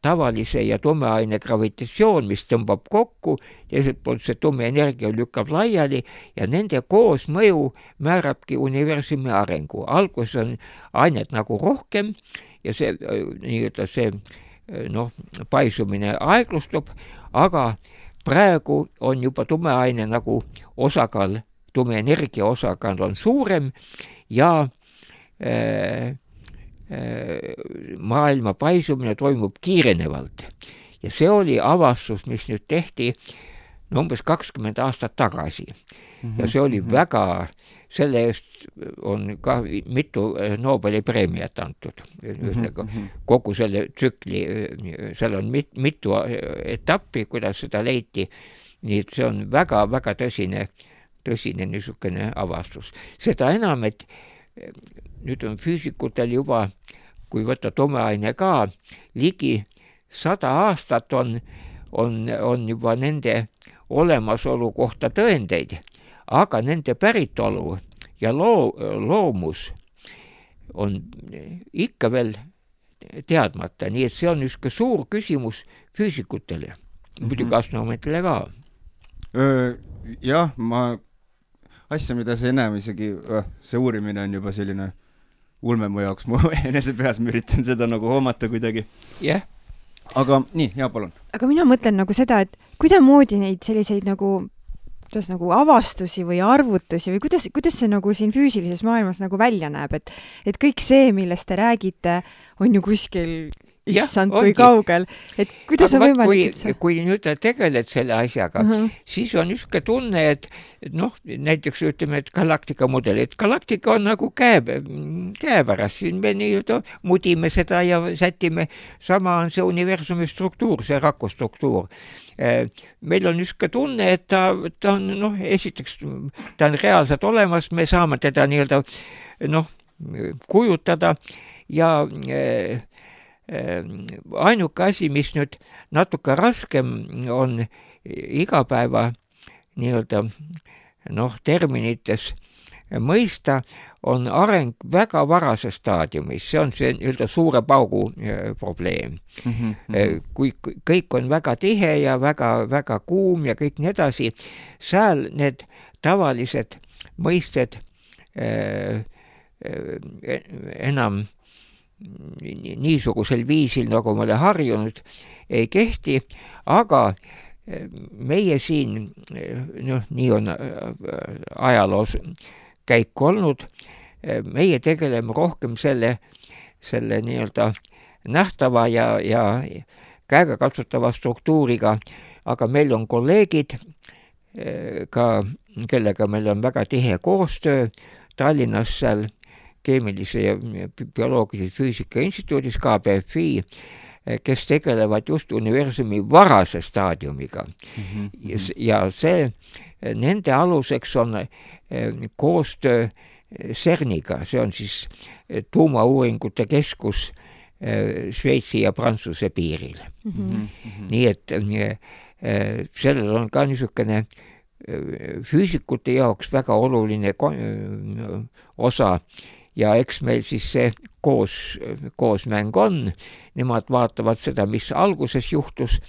C: tavalise ja tumeaine gravitatsioon, mis tõmbab kokku, teiselt poolt see tume energia lükkab laiali ja nende koosmõju määrabki universumi arengu. Alguses on ainet nagu rohkem ja see nii-öelda see paisumine aeglustub, aga praegu on juba tumeaine nagu osakaal, tume energia osakaal on suurem ja maailma paisumine toimub kiirenevalt. Ja see oli avastus, mis nüüd tehti umbes 20 aastat tagasi. Ja see oli väga, selle eest on ka mitu Nobeli preemiat antud. Kogu selle tsükli, seal on mitu etappi, kuidas seda leiti. Nii et see on väga tõsine niisugune avastus. Seda enam, et nüüd on füüsikutel juba, kui võtta tumeaine ka, ligi 100 aastat on juba nende olemasolu kohta tõendeid, aga nende päritolu ja loomus on ikka veel teadmata, nii et see on üks suur küsimus füüsikutele, muidugi astronoomidele ka.
B: Jah, asja, mida sa enam isegi, see uurimine on juba selline ulme mu jaoks, mu enese peas ma üritan seda nagu hoomata kuidagi.
C: Jah.
B: Aga nii, jaa, palun.
A: Aga mina mõtlen nagu seda, et kuidamoodi neid selliseid nagu avastusi või arvutusi või kuidas see nagu siin füüsilises maailmas nagu välja näeb, et kõik see, millest te räägite, on ju kuskil issand, kui kaugel, et kuidas on võimalik
C: kui nüüd tegeled selle asjaga, siis on niisugune tunne, et näiteks ütleme, et galaktika mudel, et galaktika on nagu käepärast, siin me nii-öelda mudime seda ja sätime, sama on see universumi struktuur, see rakustruktuur. Meil on niisugune tunne, et ta on, esiteks, ta on reaalselt olemas, me saame teda nii-öelda kujutada ja ainuke asi, mis nüüd natuke raskem on igapäeva nii-öelda terminites mõista, on areng väga varases staadiumis, see on see nii-öelda suure paugu probleem. Kui kõik on väga tihe ja väga kuum ja kõik nii edasi, seal need tavalised mõisted enam niisugusel viisil, nagu me oleme harjunud, ei kehti, aga meie siin, nii on ajaloos käik olnud, meie tegeleme rohkem selle nii-öelda nähtava ja käegakatsutava struktuuriga, aga meil on kolleegid, ka kellega meil on väga tihe koostöö Tallinnas seal keemilise ja bioloogilise füüsika instituudis KBFI, kes tegelevad just universumi varase staadiumiga. Ja see, nende aluseks on koostöö CERNiga, see on siis tuumauuringute keskus Šveitsi ja Prantsuse piiril. Nii et sellel on ka niisugune füüsikute jaoks väga oluline osa ja eks meil siis see koosmäng on, nemad vaatavad seda, mis alguses juhtus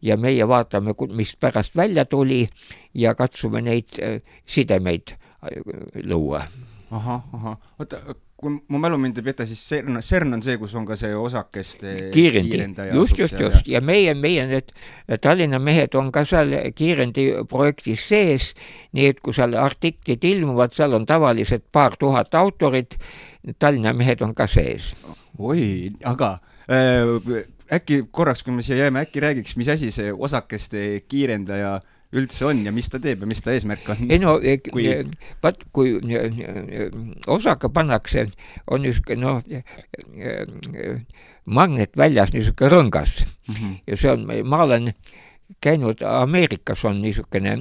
C: ja meie vaatame, mis pärast välja tuli ja katsume neid sidemeid luua.
B: Oota, kui mu mälu mind ei peta, siis CERN on see, kus on ka see osakeste
C: kiirendaja. Just. Ja meie need Tallinna mehed on ka seal kiirendi projektis sees, nii et kui seal artiklid ilmuvad, seal on tavaliselt 2000 autorit, Tallinna mehed on ka sees.
B: Oi, aga äkki korraks, kui me siia jääme, äkki räägiks, mis asi see osakeste kiirendaja üldse on ja mis ta teeb ja mis ta eesmärk on?
C: Kui osaka pannakse, on niisugune magnet väljas, niisugune rõngas. Ja see on, ma olen käinud, Ameerikas on niisugune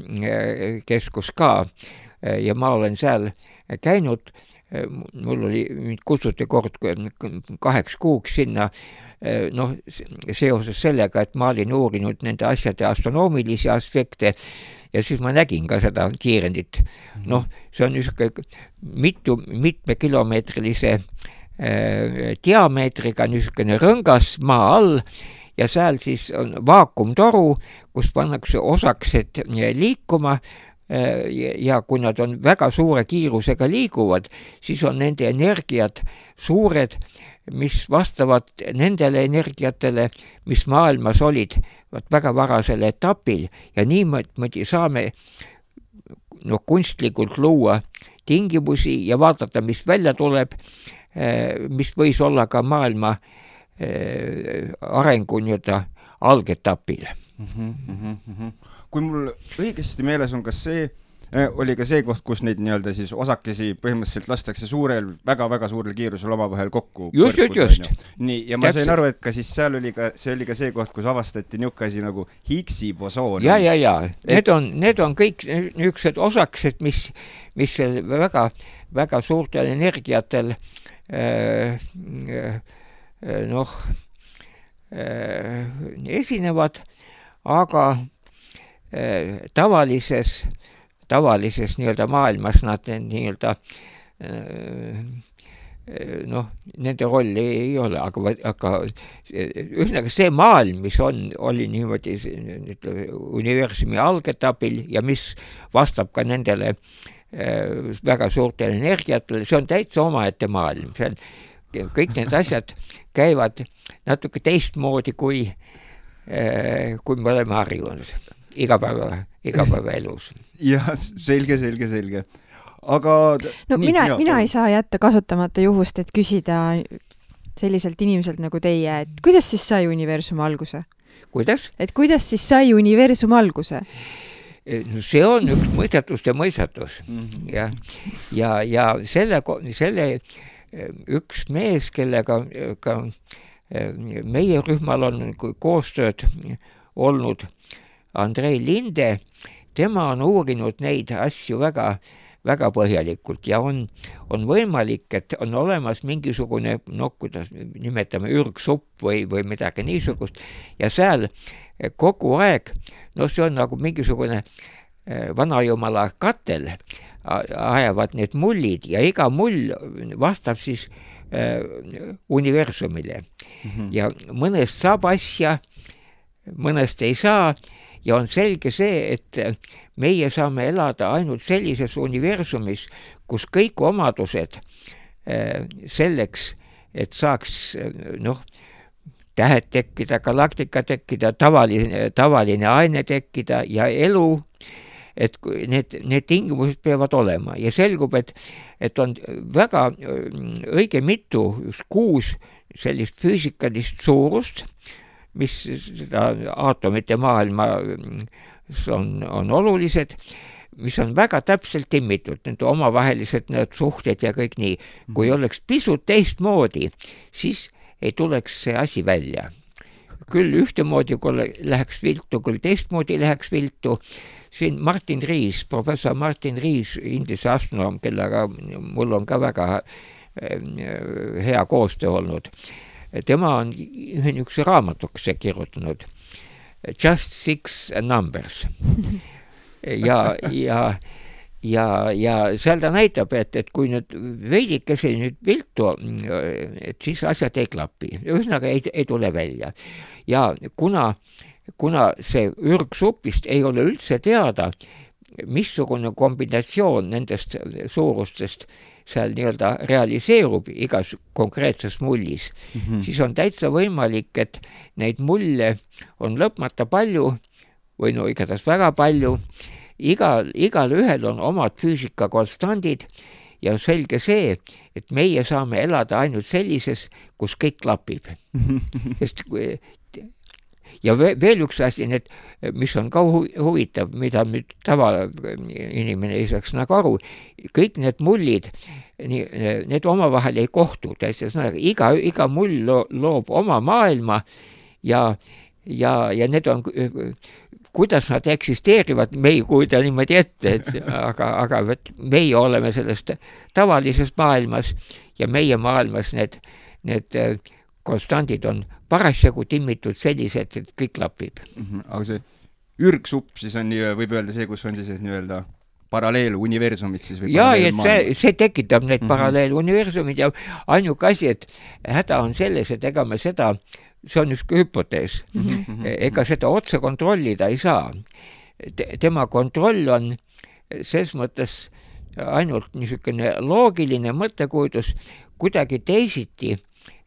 C: keskus ka ja ma olen seal käinud, mul oli, mind kutsuti kord 8 kuuks sinna, seoses sellega, et ma olin uurinud nende asjade astronoomilisi aspekte ja siis ma nägin ka seda kiirendit. See on niisugune mitmekilomeetrilise diameetriga niisugune rõngas maa all ja seal siis on vaakumtoru, kus pannakse osaksed liikuma ja kui nad on väga suure kiirusega liiguvad, siis on nende energiat suured, mis vastavad nendele energiatele, mis maailmas olid väga varasel etapil ja niimoodi saame kunstlikult luua tingimusi ja vaadata, mis välja tuleb, mis võis olla ka maailma arengu algetapil.
B: Kui mul õigesti meeles on, kas see oli ka see koht, kus neid nii-öelda siis osakesi põhimõtteliselt lastakse väga-väga suurel kiirusel omavahel kokku.
C: Just.
B: Nii, ja ma sain aru, et ka siis seal oli ka see koht, kus avastati niisugune asi nagu Higgsi bosoon.
C: Ja. Need on kõik niisugused osakesed, mis väga, väga suurtel energiatel esinevad, aga tavalises nii-öelda maailmas nad nii-öelda nende rolli ei ole, aga ühesõnaga see maailm, mis oli niimoodi universumi algetapil ja mis vastab ka nendele väga suurtele energiatele, see on täitsa omaette maailm. Kõik need asjad käivad natuke teistmoodi, kui me oleme harjunud igapäevaelus.
B: Jah, selge. Aga
A: mina ei saa jätta kasutamata juhust, et küsida selliselt inimeselt nagu teie, et kuidas siis sai universum alguse?
C: Kuidas?
A: Et kuidas siis sai universum alguse?
C: See on üks mõistatus. Ja selle üks mees, kellega ka meie rühmal on koostööd olnud, Andrei Linde, tema on uurinud neid asju väga, väga põhjalikult ja on võimalik, et on olemas mingisugune, kuidas nimetame, ürgsupp või midagi niisugust ja seal kogu aeg, see on nagu mingisugune vanajumala katel, ajavad need mullid ja iga mull vastab siis universumile. Ja mõnest saab asja, mõnest ei saa ja on selge see, et meie saame elada ainult sellises universumis, kus kõik omadused selleks, et saaks tähed tekkida, galaktika tekkida, tavaline aine tekkida ja elu, et need tingimused peavad olema ja selgub, et on väga õige mitu, 6 sellist füüsikalist suurust, mis seda aatomite maailma on olulised, mis on väga täpselt timmitud, need omavahelised need suhted ja kõik nii. Kui oleks pisut teistmoodi, siis ei tuleks see asi välja. Küll ühtemoodi, kui läheks viltu, küll teistmoodi läheks viltu. Siin Martin Rees, professor Martin Rees, Inglise astronoom, kellega mul on ka väga hea koostöö olnud. Tema on ühe niisuguse raamatukese kirjutanud Just 6 Numbers. Ja seal ta näitab, et kui nüüd veidikese nüüd viltu, et siis asjad ei klapi. Ühesõnaga ei tule välja. Ja kuna see ürgsupist ei ole üldse teada, missugune kombinatsioon nendest suurustest seal nii-öelda realiseerub igas konkreetses mullis, siis on täitsa võimalik, et neid mulle on lõpmata palju või igatahes väga palju. Igal ühel on omad füüsikakonstandid ja selge see, et meie saame elada ainult sellises, kus kõik klapib. Ja veel üks asi, mis on ka huvitav, mida nüüd tavainimene ei saaks nagu aru, kõik need mullid, need omavahel ei kohtu. Iga mull loob oma maailma ja need on, kuidas nad eksisteerivad, me ei kuida niimoodi ette, aga meie oleme sellest tavalises maailmas ja meie maailmas need konstandid on parasjagu timmitud sellised, et kõik klapib.
B: Aga see ürgsupp siis on, võib öelda see, kus on siis nii-öelda paralleeluniversumid siis või
C: see tekitab need paralleeluniversumid ja ainuke asi, et häda on selles, et ega me seda, see on üks hüpotees, ega seda otse kontrollida ei saa. Tema kontroll on ses mõttes ainult niisugune loogiline mõttekujutus, kuidagi teisiti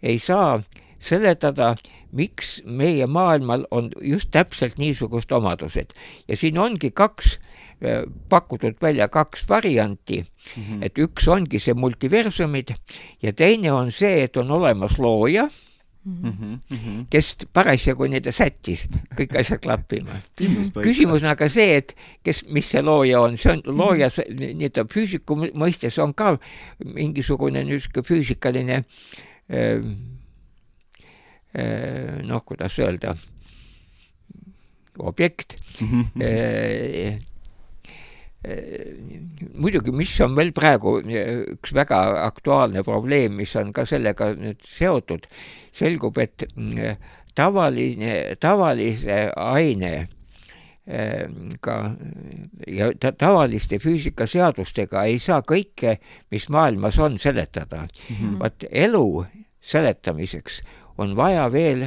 C: ei saa seletada, miks meie maailmal on just täpselt niisugust omadused. Ja siin ongi pakutud välja 2 varianti, et üks ongi see multiversumid ja teine on see, et on olemas looja, kes parasjagu neid sättis, kõik asjad klappima. Küsimus on aga see, et mis see looja on, see on looja, füüsiku mõistes on ka mingisugune füüsikaline kuidas öelda, objekt. Muidugi, mis on veel praegu üks väga aktuaalne probleem, mis on ka sellega nüüd seotud, selgub, et tavalise aine ja tavaliste füüsikaseadustega ei saa kõike, mis maailmas on, seletada. Vaat elu seletamiseks on vaja veel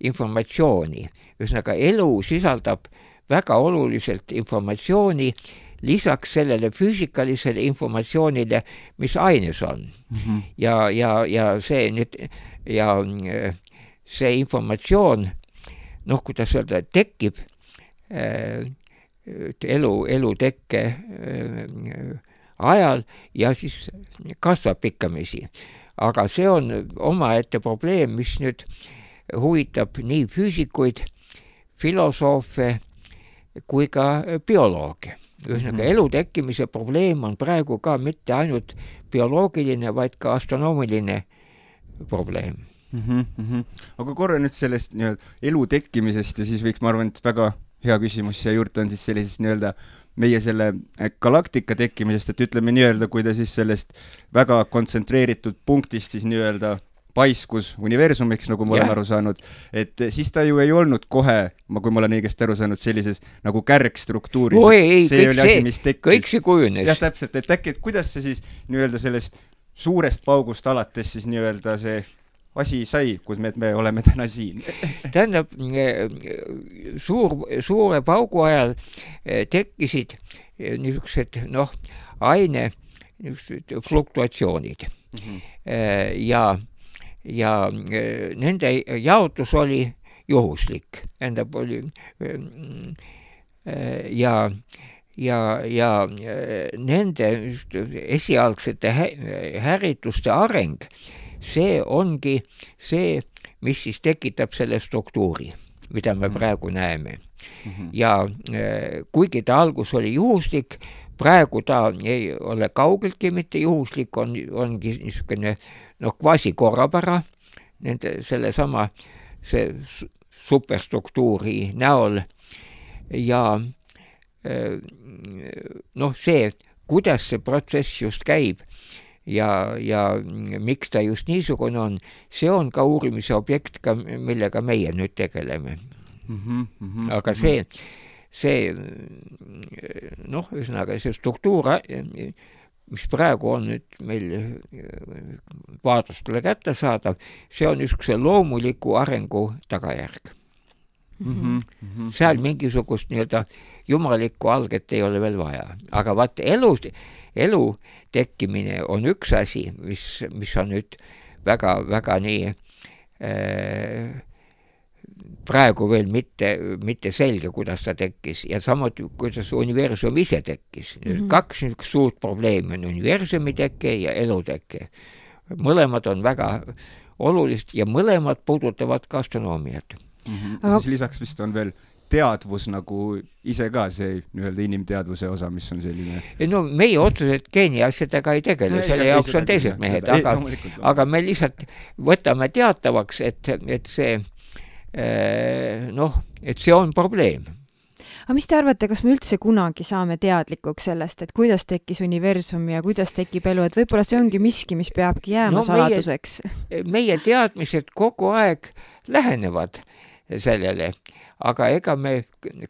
C: informatsiooni. Ühesõnaga, elu sisaldab väga oluliselt informatsiooni lisaks sellele füüsikalisele informatsioonile, mis aines on. Ja see informatsioon, kuidas öelda, tekib elu tekke ajal ja siis kasvab pikkamisi. Aga see on omaette probleem, mis nüüd huvitab nii füüsikuid, filosoofe kui ka biolooge. Ühesõnaga, elu tekkimise probleem on praegu ka mitte ainult bioloogiline, vaid ka astronoomiline probleem.
B: Aga korra nüüd sellest elu tekkimisest ja siis võiks, ma arvan, et väga hea küsimus siia juurde on siis sellisest meie selle galaktika tekkimisest, et ütleme nii-öelda, kui ta siis sellest väga kontsentreeritud punktist siis nii-öelda paiskus universumiks, nagu ma olen aru saanud, et siis ta ju ei olnud kohe, kui ma olen õigesti aru saanud, sellises nagu kärgstruktuuris.
C: Kõik see kujunes.
B: Jah, täpselt, et äkki, et kuidas see siis nii-öelda sellest suurest paugust alates siis nii-öelda see asi sai, kus me oleme täna siin?
C: Tähendab, suure paugu ajal tekkisid niisugused, aine fluktuatsioonid. Ja nende jaotus oli juhuslik. Tähendab, oli ja nende esialgsete härituste areng, see ongi see, mis siis tekitab selle struktuuri, mida me praegu näeme. Ja kuigi ta algus oli juhuslik, praegu ta ei ole kaugeltki mitte juhuslik, ongi niisugune kvasi korrapära sellesama superstruktuuri näol ja see, kuidas see protsess just käib ja miks ta just niisugune on, see on ka uurimise objekt, millega meie nüüd tegeleme. Aga see ühesõnaga see struktuur, mis praegu on nüüd meil vaadlustele kätte saadav, see on niisuguse loomuliku arengu tagajärg. Seal mingisugust nii-öelda jumalikku alget ei ole veel vaja. Aga vaat elu tekkimine on üks asi, mis on nüüd väga nii praegu veel mitte selge, kuidas ta tekkis ja samuti, kuidas universum ise tekkis. Kaks suurt probleemi on universumi tekke ja eluteke. Mõlemad on väga olulised ja mõlemad puudutavad ka astronoomiat.
B: Siis lisaks vist on veel teadvus nagu ise ka see nii-öelda inimteadvuse osa, mis on selline...
C: meie otseselt geeni asjadega ei tegele, selle jaoks on teised mehed, aga me lihtsalt võtame teatavaks, et see et see on probleem.
A: Aga mis te arvate, kas me üldse kunagi saame teadlikuks sellest, et kuidas tekkis universum ja kuidas tekib elu, et võib-olla see ongi miski, mis peabki jääma saladuseks?
C: Meie teadmised kogu aeg lähenevad sellele, aga ega me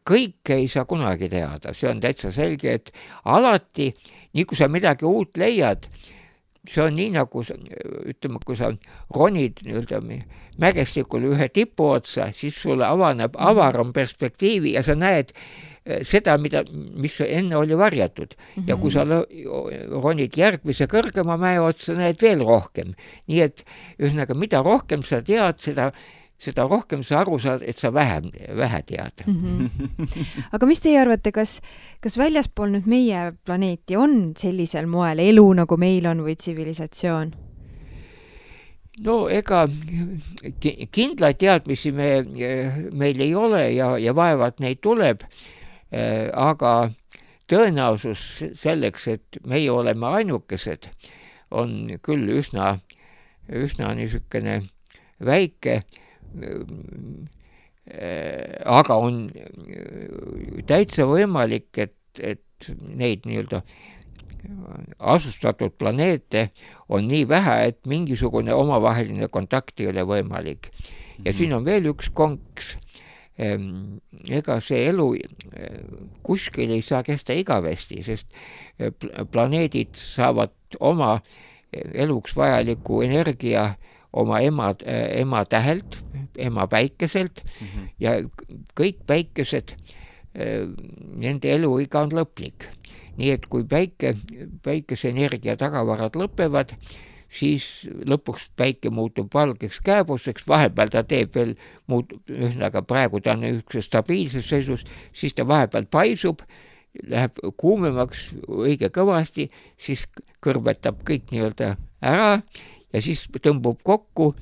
C: kõike ei saa kunagi teada. See on täitsa selge, et alati, nii kui sa midagi uut leiad, see on nii nagu, ütleme, kui sa ronid mägestikul ühe tipu otsa, siis sulle avaneb avaram perspektiivi ja sa näed seda, mis enne oli varjatud. Ja kui sa ronid järgmise kõrgema mäe otsa, näed veel rohkem. Nii et ühesõnaga, mida rohkem sa tead, seda rohkem sa aru saad, et sa vähe tead.
A: Aga mis teie arvate, kas väljaspool nüüd meie planeeti on sellisel moel elu, nagu meil on või tsivilisatsioon?
C: Ega kindlaid teadmisi meil ei ole ja vaevad neid tuleb, aga tõenäosus selleks, et meie oleme ainukesed, on küll üsna niisugune väike, aga on täitsa võimalik, et neid nii-öelda asustatud planeete on nii vähe, et mingisugune omavaheline kontakt ei ole võimalik. Ja siin on veel üks konks. Ega see elu kuskil ei saa kesta igavesti, sest planeedid saavad oma eluks vajaliku energia oma ema tähelt, ema päikeselt ja kõik päikesed, nende eluiga on lõplik. Nii et kui päikese energia tagavarad lõpevad, siis lõpuks päike muutub valgeks kääbuseks, vahepeal ta teeb veel, ühesõnaga praegu ta on üks stabiilses seisus, siis ta vahepeal paisub, läheb kuumemaks õige kõvasti, siis kõrvetab kõik nii-öelda ära ja siis tõmbub kokku,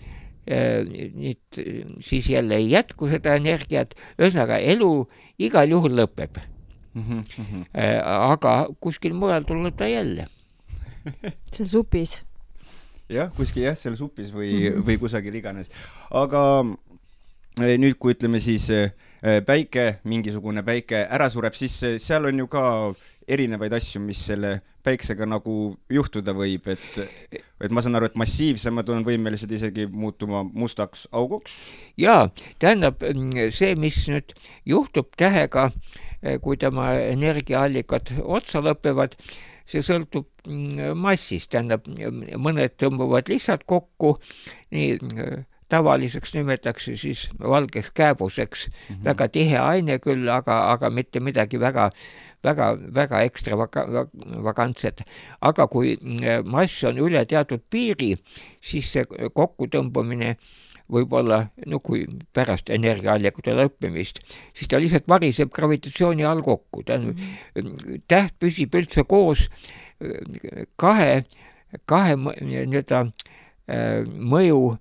C: siis jälle ei jätku seda energiat, ühesõnaga elu igal juhul lõpeb. Aga kuskil mujal tuleb ta jälle.
A: Seal supis.
B: Jah, kuskil seal supis või kusagil iganes. Aga nüüd, kui ütleme siis mingisugune päike ära sureb, siis seal on ju ka erinevaid asju, mis selle päiksega nagu juhtuda võib, et ma saan aru, et massiivsemad on võimelised isegi muutuma mustaks auguks?
C: Jaa, tähendab see, mis nüüd juhtub tähega, kui tema energiaallikad otsa lõpevad, see sõltub massist, tähendab mõned tõmbuvad lihtsalt kokku, nii tavaliseks nimetatakse siis valgeks kääbuseks, väga tihe aine küll, aga mitte midagi väga ekstravagantset. Aga kui mass on üle teatud piiri, siis see kokkutõmbamine võib olla, kui pärast energiaallikute lõppemist, siis ta lihtsalt variseb gravitatsiooni all kokku. Täht püsib üldse koos kahe mõju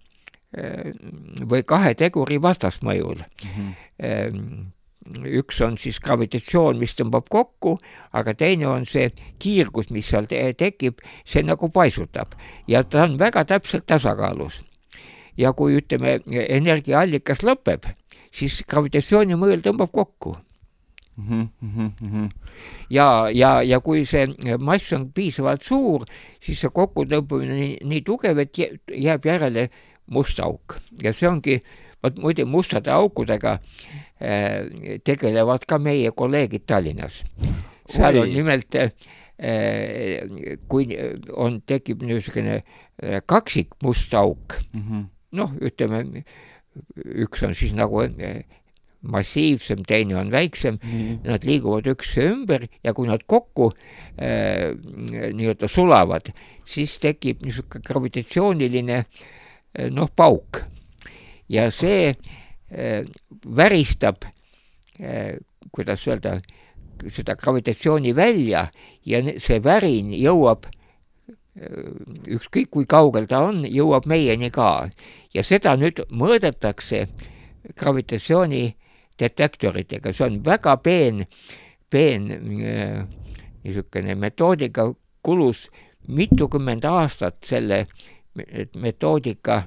C: või kahe teguri vastasmõjul. Üks on siis gravitatsioon, mis tõmbab kokku, aga teine on see kiirgus, mis seal tekib, see nagu paisutab ja ta on väga täpselt tasakaalus. Ja kui ütleme, energiaallikas lõpeb, siis gravitatsiooni mõjul tõmbab kokku. Ja kui see mass on piisavalt suur, siis see kokkutõmbamine nii tugev, et jääb järele must auk. Ja see ongi, muide mustade aukudega tegelevad ka meie kolleegid Tallinnas. Seal on nimelt, kui tekib niisugune kaksik must auk, ütleme, üks on siis nagu massiivsem, teine on väiksem, nad liiguvad ükse ümber ja kui nad kokku nii-öelda sulavad, siis tekib niisugune gravitatsiooniline pauk ja see väristab, kuidas öelda, seda gravitatsiooni välja ja see värin jõuab, ükskõik kui kaugel ta on, jõuab meieni ka ja seda nüüd mõõdetakse gravitatsiooni detektoritega, see on väga peen niisugune metoodika, kulus mitukümmend aastat selle metoodika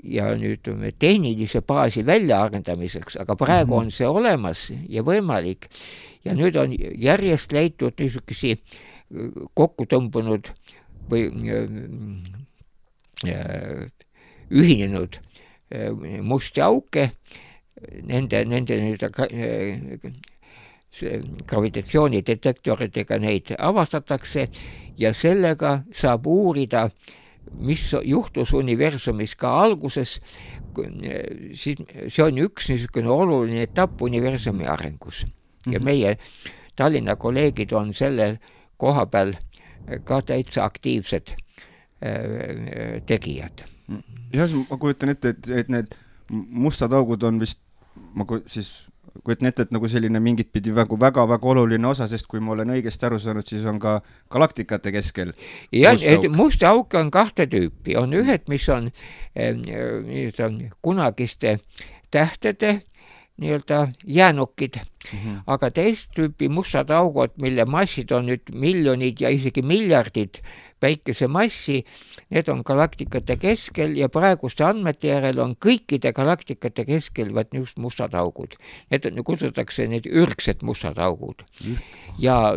C: ja nüüd tehnilise baasi väljaarendamiseks, aga praegu on see olemas ja võimalik ja nüüd on järjest leitud niisugusi kokkutõmbunud või ühinenud musti auke, nende gravitatsioonidetektoritega neid avastatakse ja sellega saab uurida, mis juhtus universumis ka alguses, see on üks niisugune oluline etapp universumi arengus. Ja meie Tallinna kolleegid on selle koha peal ka täitsa aktiivsed tegijad.
B: Jah, ma kujutan ette, et need mustad augud on vist, ma kujutan ette, et nagu selline mingit pidi väga oluline osa, sest kui ma olen õigesti aru saanud, siis on ka galaktikate keskel
C: musta auke on kahte tüüpi. On ühed, mis on kunagiste tähtede nii-öelda jäänukid, aga teist tüüpi mustad augud, mille massid on nüüd miljonid ja isegi miljardid päikese massi, need on galaktikate keskel ja praeguste andmete järel on kõikide galaktikate keskel just mustad augud. Need kutsutakse need ürgsed mustad augud. Ja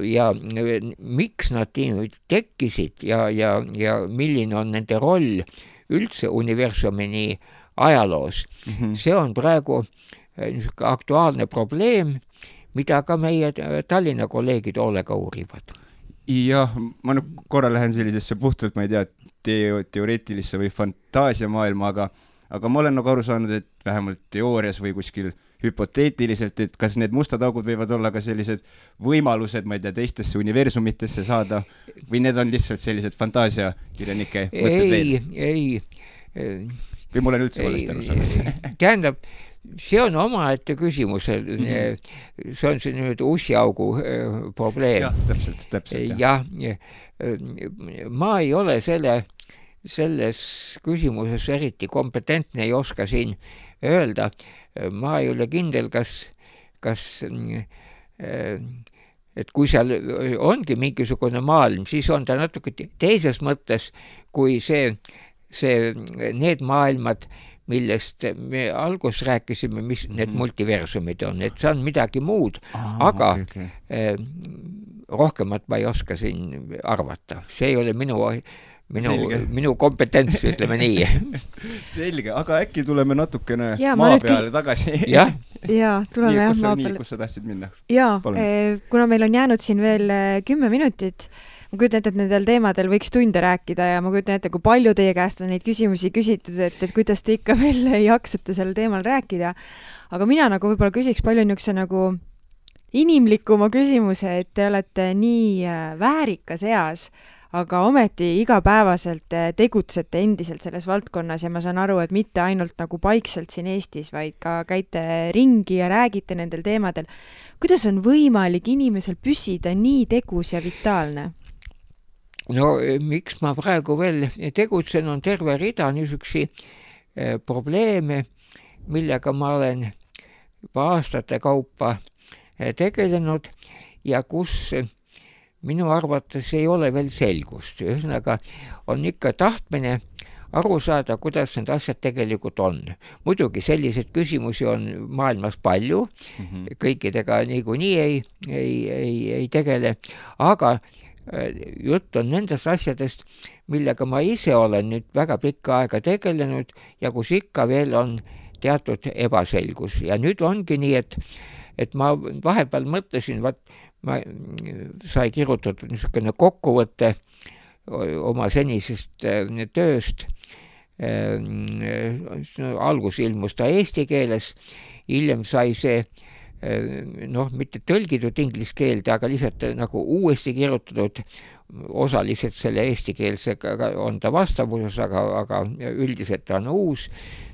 C: miks nad tekkisid ja milline on nende roll üldse universumini ajaloos, see on praegu aktuaalne probleem, mida ka meie Tallinna kolleegid hoolega uurivad.
B: Jah, ma nüüd korra lähen sellisesse puhtalt, ma ei tea, teoreetilisse või fantaasiamaailma, aga ma olen nagu aru saanud, et vähemalt teoorias või kuskil hüpoteetiliselt, et kas need mustad augud võivad olla ka sellised võimalused, ma ei tea, teistesse universumitesse saada või need on lihtsalt sellised fantaasiakirjanike mõtted veel? Ei. Või mul on üldse valesti aru saanud?
C: Tähendab, see on omaette küsimus, see on see nüüd ussiaugu probleem.
B: Jah, täpselt.
C: Jah, ma ei ole selles küsimuses eriti kompetentne, ei oska siin öelda. Ma ei ole kindel, kas et kui seal ongi mingisugune maailm, siis on ta natuke teises mõttes kui need maailmad, millest me alguses rääkisime, mis need multiversumid on, et see on midagi muud, aga rohkemat ma ei oska siin arvata. See ei ole minu kompetents, ütleme nii.
B: Selge, aga äkki tuleme natukene maa peale tagasi.
C: Jah,
A: tuleme maa peale.
B: Kus sa tahtsid minna?
A: Jaa, kuna meil on jäänud siin veel 10 minutit, ma kujutan ette, et nendel teemadel võiks tunde rääkida ja ma kujutan ette, kui palju teie käest on neid küsimusi küsitud, et kuidas te ikka veel jaksate sel teemal rääkida. Aga mina nagu võib-olla küsiks palju niisuguse nagu inimlikuma küsimuse, et te olete nii väärikas eas, aga ometi igapäevaselt tegutsete endiselt selles valdkonnas ja ma saan aru, et mitte ainult nagu paikselt siin Eestis, vaid ka käite ringi ja räägite nendel teemadel. Kuidas on võimalik inimesel püsida nii tegus ja vitaalne?
C: No miks ma praegu veel tegutsen, on terve rida niisugusi probleeme, millega ma olen aastate kaupa tegelenud ja kus minu arvates ei ole veel selgust. Ühesõnaga on ikka tahtmine aru saada, kuidas need asjad tegelikult on. Muidugi selliseid küsimusi on maailmas palju, kõikidega niikuinii ei tegele, aga jutt on nendest asjadest, millega ma ise olen nüüd väga pikka aega tegelenud ja kus ikka veel on teatud ebaselgus. Ja nüüd ongi nii, et ma vahepeal mõtlesin, ma sai kirjutatud niisugune kokkuvõte oma senisest tööst. Algus ilmus ta eesti keeles, hiljem sai see mitte tõlgitud inglise keelde, aga lihtsalt nagu uuesti kirjutatud, osaliselt selle eestikeelsega on ta vastavuses, aga üldiselt ta on uus.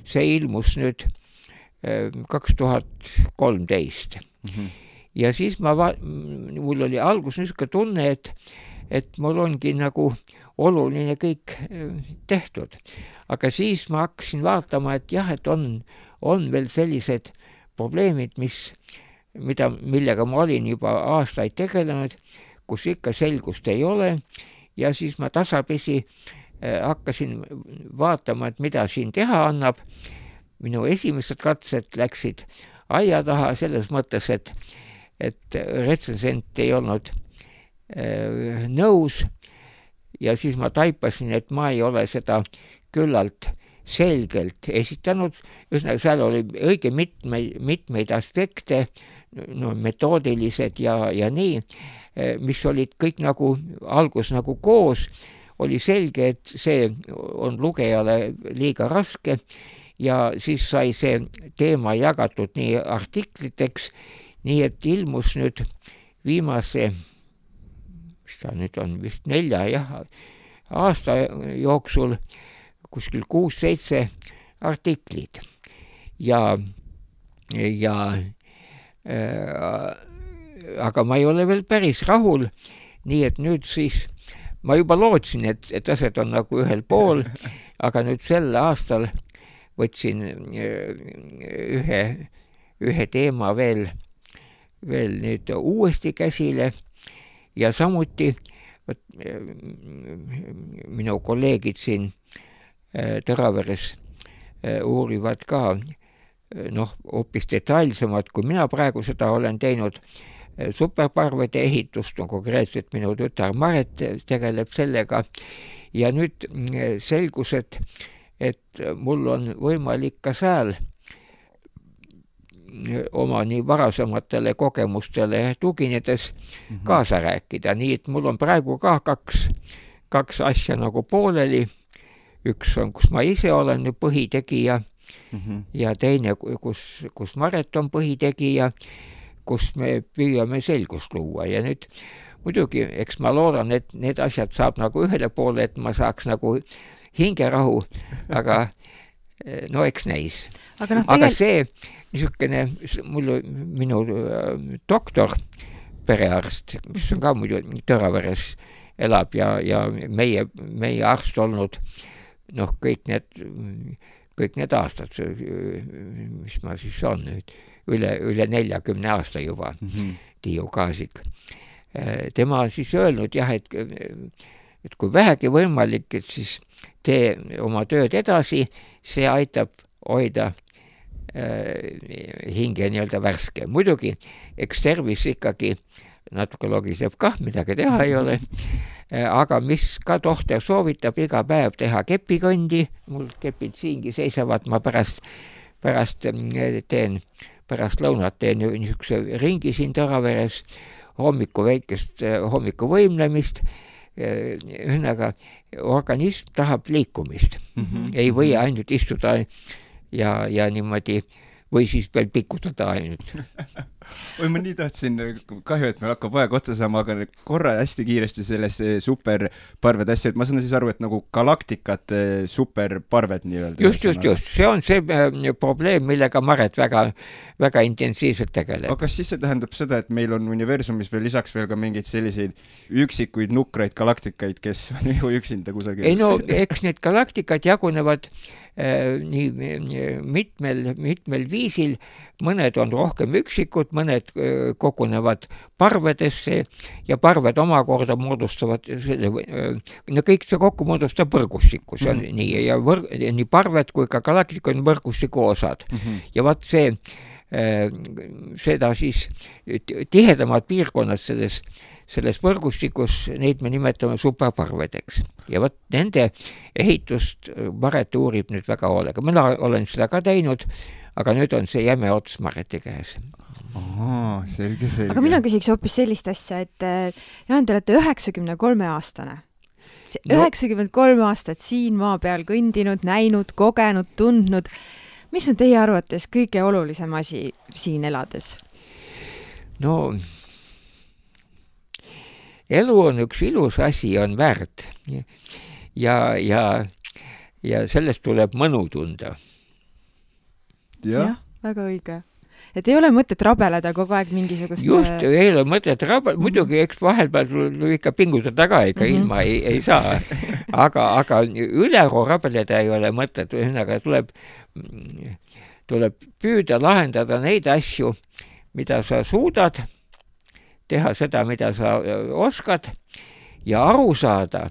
C: See ilmus nüüd 2013. Ja siis mul oli algus niisugune tunne, et mul ongi nagu oluline kõik tehtud. Aga siis ma hakkasin vaatama, et jah, et on veel sellised probleemid, millega ma olin juba aastaid tegelenud, kus ikka selgust ei ole ja siis ma tasapisi hakkasin vaatama, et mida siin teha annab. Minu esimesed katsed läksid aia taha selles mõttes, et retsensent ei olnud nõus ja siis ma taipasin, et ma ei ole seda küllalt selgelt esitanud. Ühesõnaga, seal oli õige mitmeid aspekte, metoodilised ja nii, mis olid kõik nagu algus nagu koos. Oli selge, et see on lugejale liiga raske ja siis sai see teema jagatud nii artikliteks, nii et ilmus nüüd viimase, mis ta nüüd on, vist 4 aasta jooksul kuskil 6-7 artiklid aga ma ei ole veel päris rahul, nii et nüüd siis ma juba lootsin, et asjad on nagu ühel pool, aga nüüd sel aastal võtsin ühe teema veel nüüd uuesti käsile ja samuti minu kolleegid siin Tõraveres uurivad ka hoopis detailsemad, kui mina praegu seda olen teinud, superparvede ehitust, konkreetselt minu tütar Maret tegeleb sellega ja nüüd selgus, et mul on võimalik ka seal oma nii varasematele kogemustele tuginedes kaasa rääkida, nii et mul on praegu ka kaks asja nagu pooleli. Üks on, kus ma ise olen põhitegija ja teine, kus Maret on põhitegija, kus me püüame selgust luua ja nüüd muidugi, eks ma loodan, et need asjad saab nagu ühele poole, et ma saaks nagu hingerahu, aga eks näis. Aga see niisugune, minu doktor, perearst, mis on ka muidu Tõraveres elab ja meie arst olnud kõik need aastad, mis ma siis on nüüd, üle 40 aasta juba, Tiiu Kaasik. Tema on siis öelnud jah, et kui vähegi võimalik, et siis tee oma tööd edasi, see aitab hoida hinge nii-öelda värske. Muidugi, eks tervis ikkagi natuke logiseb kah, midagi teha ei ole. Aga mis ka tohter soovitab iga päev teha kepikõndi, mul kepid siingi seisavad, ma pärast lõunat teen niisuguse ringi siin Tõraveres, hommikuvõimlemist, ühesõnaga organism tahab liikumist. Ei või ainult istuda ja niimoodi või siis veel pikutada ainult.
B: Oi, ma nii tahtsin, kahju, et meil hakkab aeg otsa saama, aga korra hästi kiiresti selles superparved asja, et ma saan siis aru, et nagu galaktikat superparved nii-öelda.
C: Just. See on see probleem, millega Maret väga intensiivselt tegeleb.
B: Aga kas siis see tähendab seda, et meil on universumis veel lisaks veel ka mingeid selliseid üksikuid nukraid galaktikaid, kes on ju üksinda kusagil?
C: Ei no, eks need galaktikad jagunevad nii mitmel viisil, mõned on rohkem üksikud, mõned kogunevad parvedesse ja parved omakorda moodustavad kõik see kokku moodustab võrgustiku, see on nii, ja nii parved kui ka galaktika on võrgustiku osad. Ja vaat seda siis tihedamad piirkonnad selles võrgustikus, neid me nimetame superparvedeks. Ja võt nende ehitust Maret uurib nüüd väga hoolega. Mina olen seda ka teinud, aga nüüd on see jäme ots Mareti käes.
B: Selge.
A: Aga mina küsiks hoopis sellist asja, et Jaan, te olete 93-aastane. 93 aastat siin maa peal kõndinud, näinud, kogenud, tundnud. Mis on teie arvates kõige olulisem asi siin elades?
C: No, elu on üks ilus asi, on väärt. Ja sellest tuleb mõnu tunda.
A: Jah, väga õige. Et ei ole mõtet rabeleda kogu aeg mingisugust...
C: Just, ei ole mõtet rabeleda. Muidugi, eks vahelpeal tuleb ikka pingutada ka, ega ilma ei saa. Aga üleru rabeleda ei ole mõtet. Ühesõnaga tuleb püüda lahendada neid asju, mida sa suudad, teha seda, mida sa oskad ja aru saada,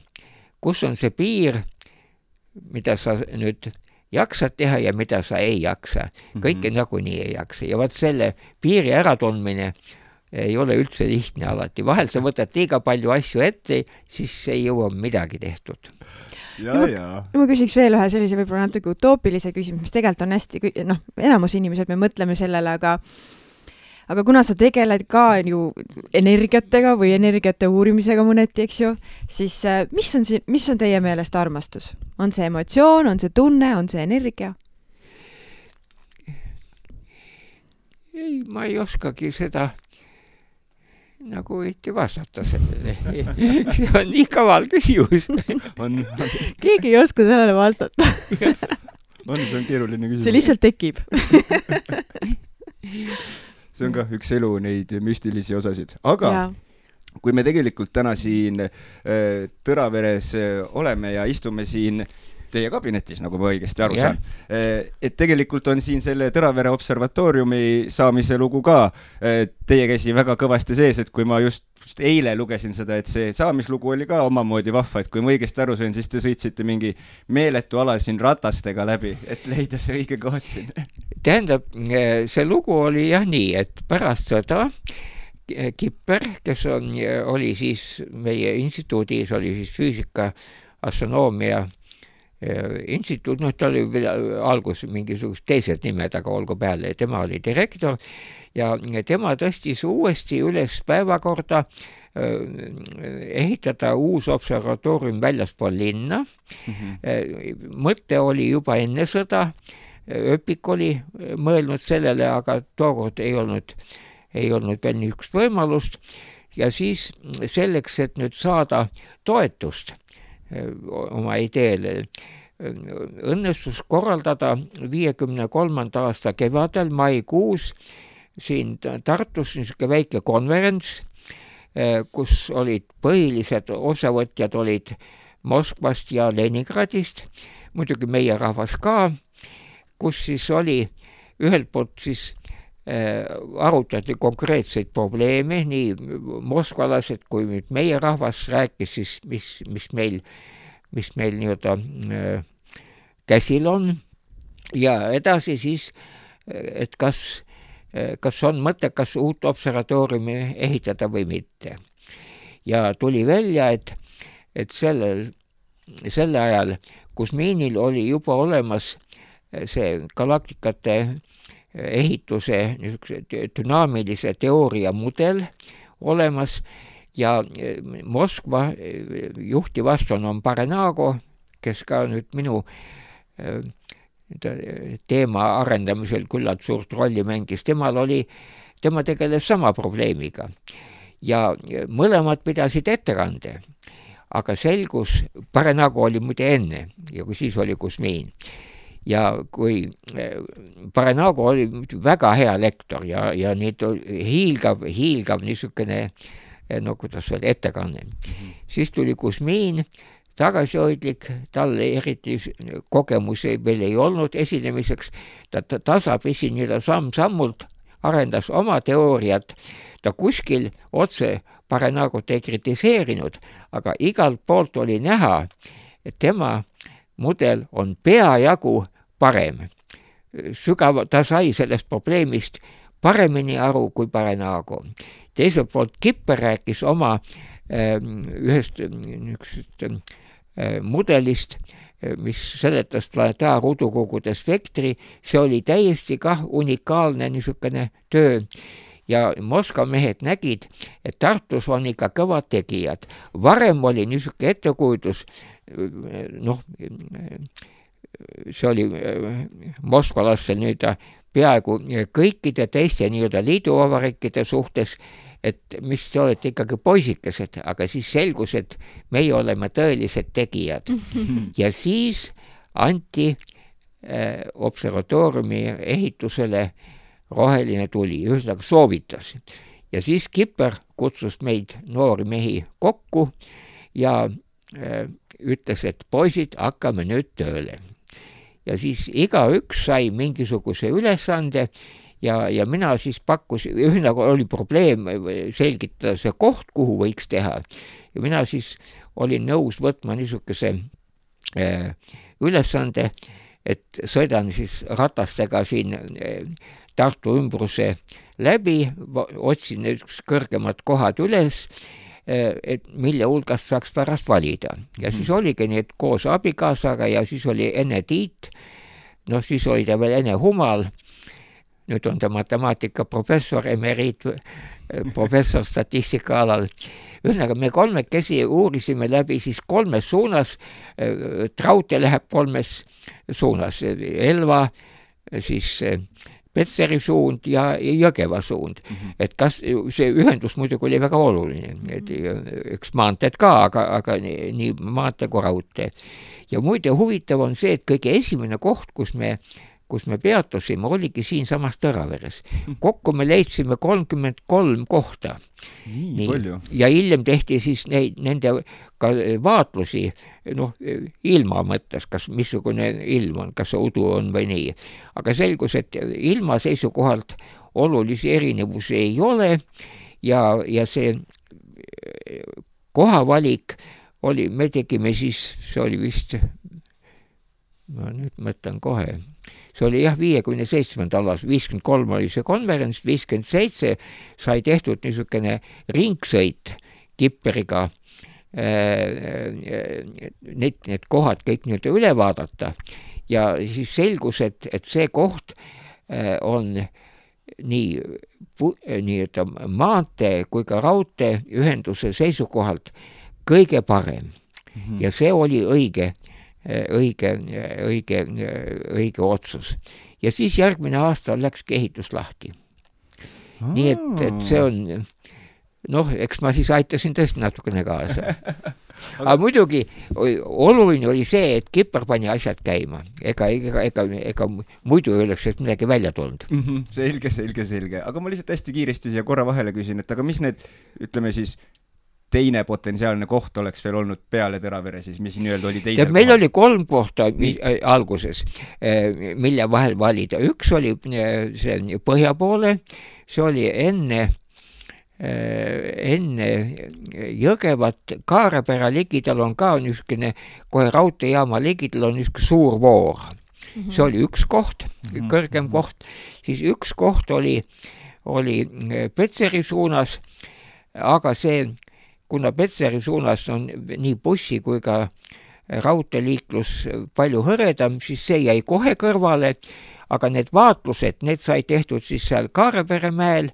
C: kus on see piir, mida sa nüüd jaksad teha ja mida sa ei jaksa. Kõike nagunii ei jaksa. Ja vaat selle piiri äratundmine ei ole üldse lihtne alati. Vahel sa võtad liiga palju asju ette, siis ei jõua midagi tehtud.
A: Ma küsiks veel ühe sellise võib-olla natuke utoopilise küsimus, mis tegelikult on hästi, enamus inimesed me mõtleme sellele, aga kuna sa tegeled ka ju energiatega või energiate uurimisega mõneti, eks ju, siis mis on teie meelest armastus? On see emotsioon, on see tunne, on see energia?
C: Ei, ma ei oskagi seda nagu võiti vastata sellele. See on nii kaval küsimus.
A: Keegi ei oska sellele vastata.
B: See on keeruline küsimus.
A: See lihtsalt tekib.
B: See on ka üks elu neid müstilisi osasid. Aga kui me tegelikult täna siin Tõraveres oleme ja istume siin teie kabinetis, nagu ma õigesti aru saan, et tegelikult on siin selle Tõravere observatooriumi saamise lugu ka teie käsi väga kõvasti sees, et kui ma just eile lugesin seda, et see saamislugu oli ka omamoodi vahva, et kui ma õigesti aru sain, siis te sõitsite mingi meeletu ala siin ratastega läbi, et leida see õige koht siin.
C: Tähendab, see lugu oli jah nii, et pärast sõda Kipper, kes oli siis meie instituudis, oli siis füüsika, astronoomia instituut, ta oli algus mingisugust teised nimed, aga olgu peale, tema oli direktor ja tema tõstis uuesti üles päevakorda ehitada uus observatoorium väljaspool linna. Mõte oli juba enne sõda, Öpik oli mõelnud sellele, aga tookord ei olnud veel niisugust võimalust ja siis selleks, et nüüd saada toetust oma ideele, õnnestus korraldada 53. aasta kevadel maikuus siin Tartus niisugune väike konverents, kus olid põhilised osavõtjad olid Moskvast ja Leningradist, muidugi meie rahvas ka, kus siis oli ühelt poolt siis arutati konkreetseid probleeme, nii moskvalased kui nüüd meie rahvas rääkis siis, mis meil nii-öelda käsil on ja edasi siis, et kas kas on mõttekas uut observatooriumi ehitada või mitte. Ja tuli välja, et selle ajal Kusmiinil oli juba olemas see galaktikate ehituse dünaamilise teooria mudel olemas ja Moskva juhtiv astronoom Parenago, kes ka nüüd minu teema arendamisel küllalt suurt rolli mängis, tema tegeles sama probleemiga ja mõlemad pidasid ettekande, aga selgus, Parenago oli muide enne ja kui siis oli Kusmiin ja kui Parenago oli väga hea lektor ja nüüd hiilgav niisugune, no kuidas öelda, ettekanne. Siis tuli Kusmiin, tagasihoidlik, tal eriti kogemusi veel ei olnud esinemiseks, ta tasapisi nii-öelda samm-sammult arendas oma teooriat, ta kuskil otse Parenagot ei kritiseerinud, aga igalt poolt oli näha, et tema mudel on peajagu parem. Ta sai sellest probleemist paremini aru kui Parenago. Teiselt poolt Kipper rääkis oma ühest mudelist, mis seletas planetaarruudukogude spektri, see oli täiesti kah unikaalne niisugune töö ja Moskva mehed nägid, et Tartus on ikka kõvad tegijad. Varem oli niisugune ettekujutus, see oli moskvalastel nüüd peaaegu kõikide teiste nii-öelda liiduvabariikide suhtes, et mis te olete ikkagi poisikesed, aga siis selgus, et meie oleme tõelised tegijad. Ja siis anti observatooriumi ehitusele roheline tuli, ühesõnaga soovitas. Ja siis Kipper kutsus meid noori mehi kokku ja ütles, et poisid, hakkame nüüd tööle. Ja siis igaüks sai mingisuguse ülesande ja mina siis pakkusin, ühesõnaga oli probleem selgitada see koht, kuhu võiks teha. Ja mina siis olin nõus võtma niisuguse ülesande, et sõidan siis ratastega siin Tartu ümbruse läbi, otsin kõrgemad kohad üles, et mille hulgast saaks pärast valida. Ja siis oligi need koos abikaasaga ja siis oli enne Tiit, siis oli ta veel enne Humal, nüüd on ta matemaatika professor, emeriit, professor statistika alal. Ühesõnaga, me kolmekesi uurisime läbi siis kolmes suunas, Traute läheb kolmes suunas, Elva, siis Petseri suund ja Jõgeva suund. Et kas see ühendus muidugi oli väga oluline, et üks maanteed ka, aga nii maantee kui raudtee. Ja muide huvitav on see, et kõige esimene koht, kus me peatusime, oligi siin samas Tõraveres. Kokku me leidsime 33 kohta.
B: Nii palju.
C: Ja hiljem tehti siis nende ka vaatlusi, ilma mõttes, kas missugune ilm on, kas udu on või nii. Aga selgus, et ilma seisukohalt olulisi erinevusi ei ole ja see kohavalik oli, me tegime siis, see oli vist, ma nüüd mõtlen kohe, see oli 57. alas, 53 oli see konverents, 57 sai tehtud niisugune ringsõit Kipperiga, need kohad kõik nüüd üle vaadata ja siis selgus, et see koht on nii maantee kui ka raudtee ühenduse seisukohalt kõige parem ja see oli õige otsus. Ja siis järgmine aasta läkski ehitus lahti. Nii et see on, eks ma siis aitasin tõesti natukene kaasa. Aga muidugi oluline oli see, et Kipper pani asjad käima. Ega muidu ei oleks midagi välja tulnud.
B: Selge. Aga ma lihtsalt hästi kiiresti siia korra vahele küsin, et aga mis need, ütleme siis, teine potentsiaalne koht oleks veel olnud peale Tõravere, siis mis nii-öelda oli teisel
C: meil oli 3 kohta alguses, mille vahel valida. Üks oli see põhja poole, see oli enne Jõgevat, Kaarepera ligidal on ka niisugune, kohe raudteejaama ligidal on niisugune suur voor. see oli üks koht, kõrgem koht, siis üks koht oli Petseri suunas, aga see, kuna Petseri suunas on nii bussi kui ka raudteeliiklus palju hõredam, siis see jäi kohe kõrvale, aga need vaatlused, need sai tehtud siis seal Kaarepere mäel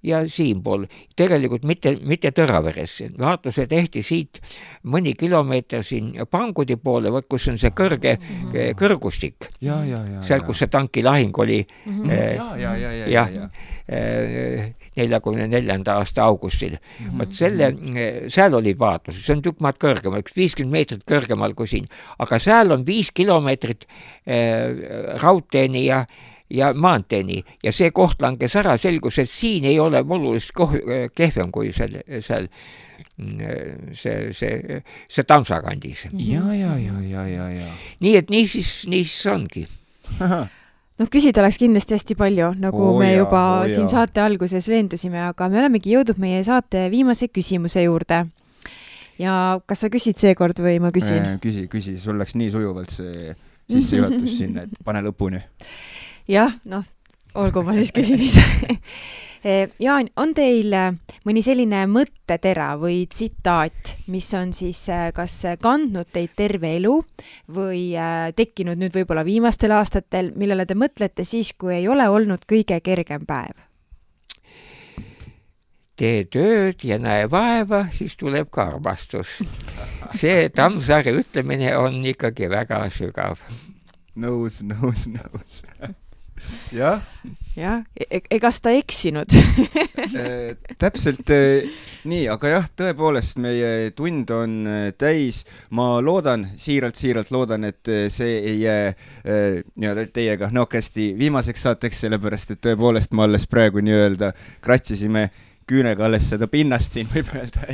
C: ja siinpool. Tegelikult mitte Tõraveres. Vaatluse tehti siit mõni kilomeeter siin Pangudi poole, kus on see kõrgustik. Seal, kus see tankilahing oli 44. aasta augustil. Seal oli vaatlus, see on tükk maad kõrgemal, 50 meetrit kõrgemal kui siin. Aga seal on 5 kilomeetrit raudteeni ja maanteeni ja see koht langes ära, selgus, et siin ei ole olulist kehvem kui seal see Tammsakandis.
B: Ja.
C: Nii et nii siis ongi.
A: Küsida oleks kindlasti hästi palju, nagu me juba siin saate alguses veendusime, aga me olemegi jõudnud meie saate viimase küsimuse juurde. Ja kas sa küsid seekord või ma küsin?
B: Küsi, sul läks nii sujuvalt see sissejuhatus sinna, et pane lõpuni.
A: Jah, olgu ma siis küsin ise. Jaan, on teil mõni selline mõttetera või tsitaat, mis on siis kas kandnud teid terve elu või tekkinud nüüd võib-olla viimastel aastatel, millele te mõtlete siis, kui ei ole olnud kõige kergem päev?
C: Tee tööd ja näe vaeva, siis tuleb ka armastus. See Tammsaare ütlemine on ikkagi väga sügav.
B: Nõus. Jah,
A: egas ta eksinud?
B: Täpselt nii, aga jah, tõepoolest meie tund on täis. Ma loodan, siiralt loodan, et see ei jää teiega nokesti viimaseks saateks, sellepärast, et tõepoolest ma alles praegu nii-öelda kratsisime küünega alles seda pinnast siin, võib öelda,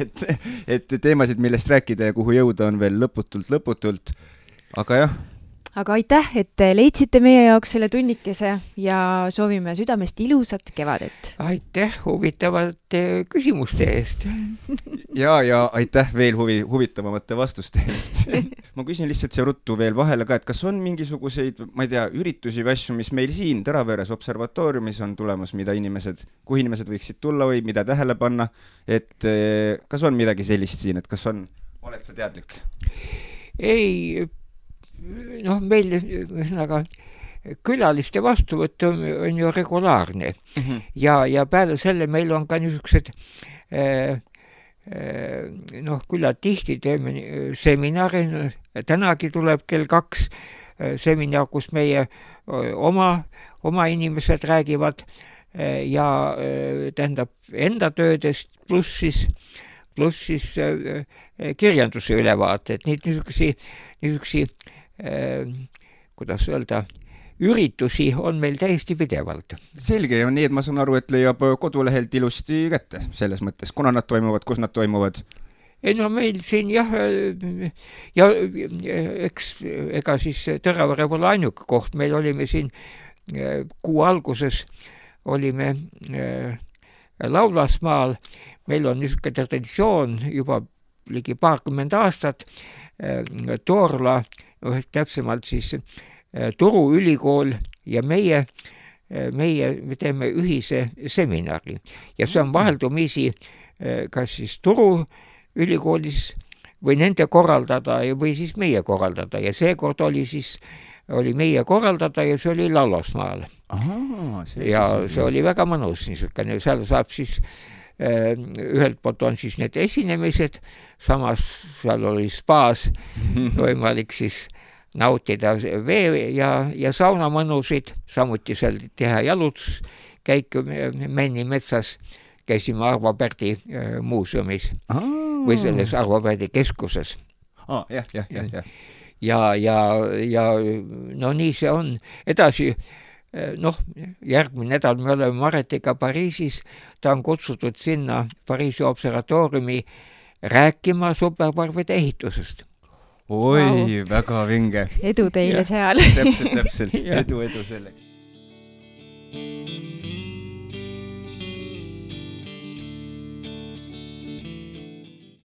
B: et teemasid, millest rääkida ja kuhu jõuda on veel lõputult, aga jah.
A: Aga aitäh, et leidsite meie jaoks selle tunnikese ja soovime südamest ilusat kevadet.
C: Aitäh huvitavate küsimuste eest.
B: Ja aitäh veel huvitavamate vastuste eest. Ma küsin lihtsalt see ruttu veel vahele ka, et kas on mingisuguseid, ma ei tea, üritusi või asju, mis meil siin Tõraveres observatooriumis on tulemas, kuhu inimesed võiksid tulla või mida tähele panna, et kas on midagi sellist siin, et kas oled sa teadlik?
C: Ei, meil külaliste vastuvõtt on ju regulaarne ja peale selle meil on ka niisugused küllalt tihti teeme seminari, tänagi tuleb kell 2 seminar, kus meie oma inimesed räägivad ja tähendab enda töödest pluss siis kirjanduse ülevaated, niisugusi kuidas öelda, üritusi on meil täiesti pidevalt.
B: Selge, ja nii, et ma saan aru, et leiab kodulehelt ilusti kätte selles mõttes, kuna nad toimuvad, kus nad toimuvad?
C: Ei meil siin jah, ja ega siis Tõravere pole ainuke koht, meil olime siin kuu alguses, olime Laulasmaal, meil on niisugune traditsioon juba ligi 20 aastat, Toorla, täpsemalt siis Turu ülikool ja meie teeme ühise seminari ja see on vaheldumisi kas siis Turu ülikoolis või nende korraldada või siis meie korraldada ja seekord oli meie korraldada ja see oli Laulasmaal. Ja see oli väga mõnus niisugune, seal saab siis ühelt poolt on siis need esinemised, samas seal oli spaas võimalik siis nautida vee ja saunamõnusid, samuti seal teha jalutuskäiku Männi metsas, käisime Arvo Pärdi muuseumis või selles Arvo Pärdi keskuses. Ja nii see on. Edasi, järgmine nädal me oleme Maretiga Pariisis, ta on kutsutud sinna Pariisi observatooriumi rääkima superparvide ehitusest.
B: Oi, väga vinge.
A: Edu teile seal.
B: Täpselt. Edu selleks.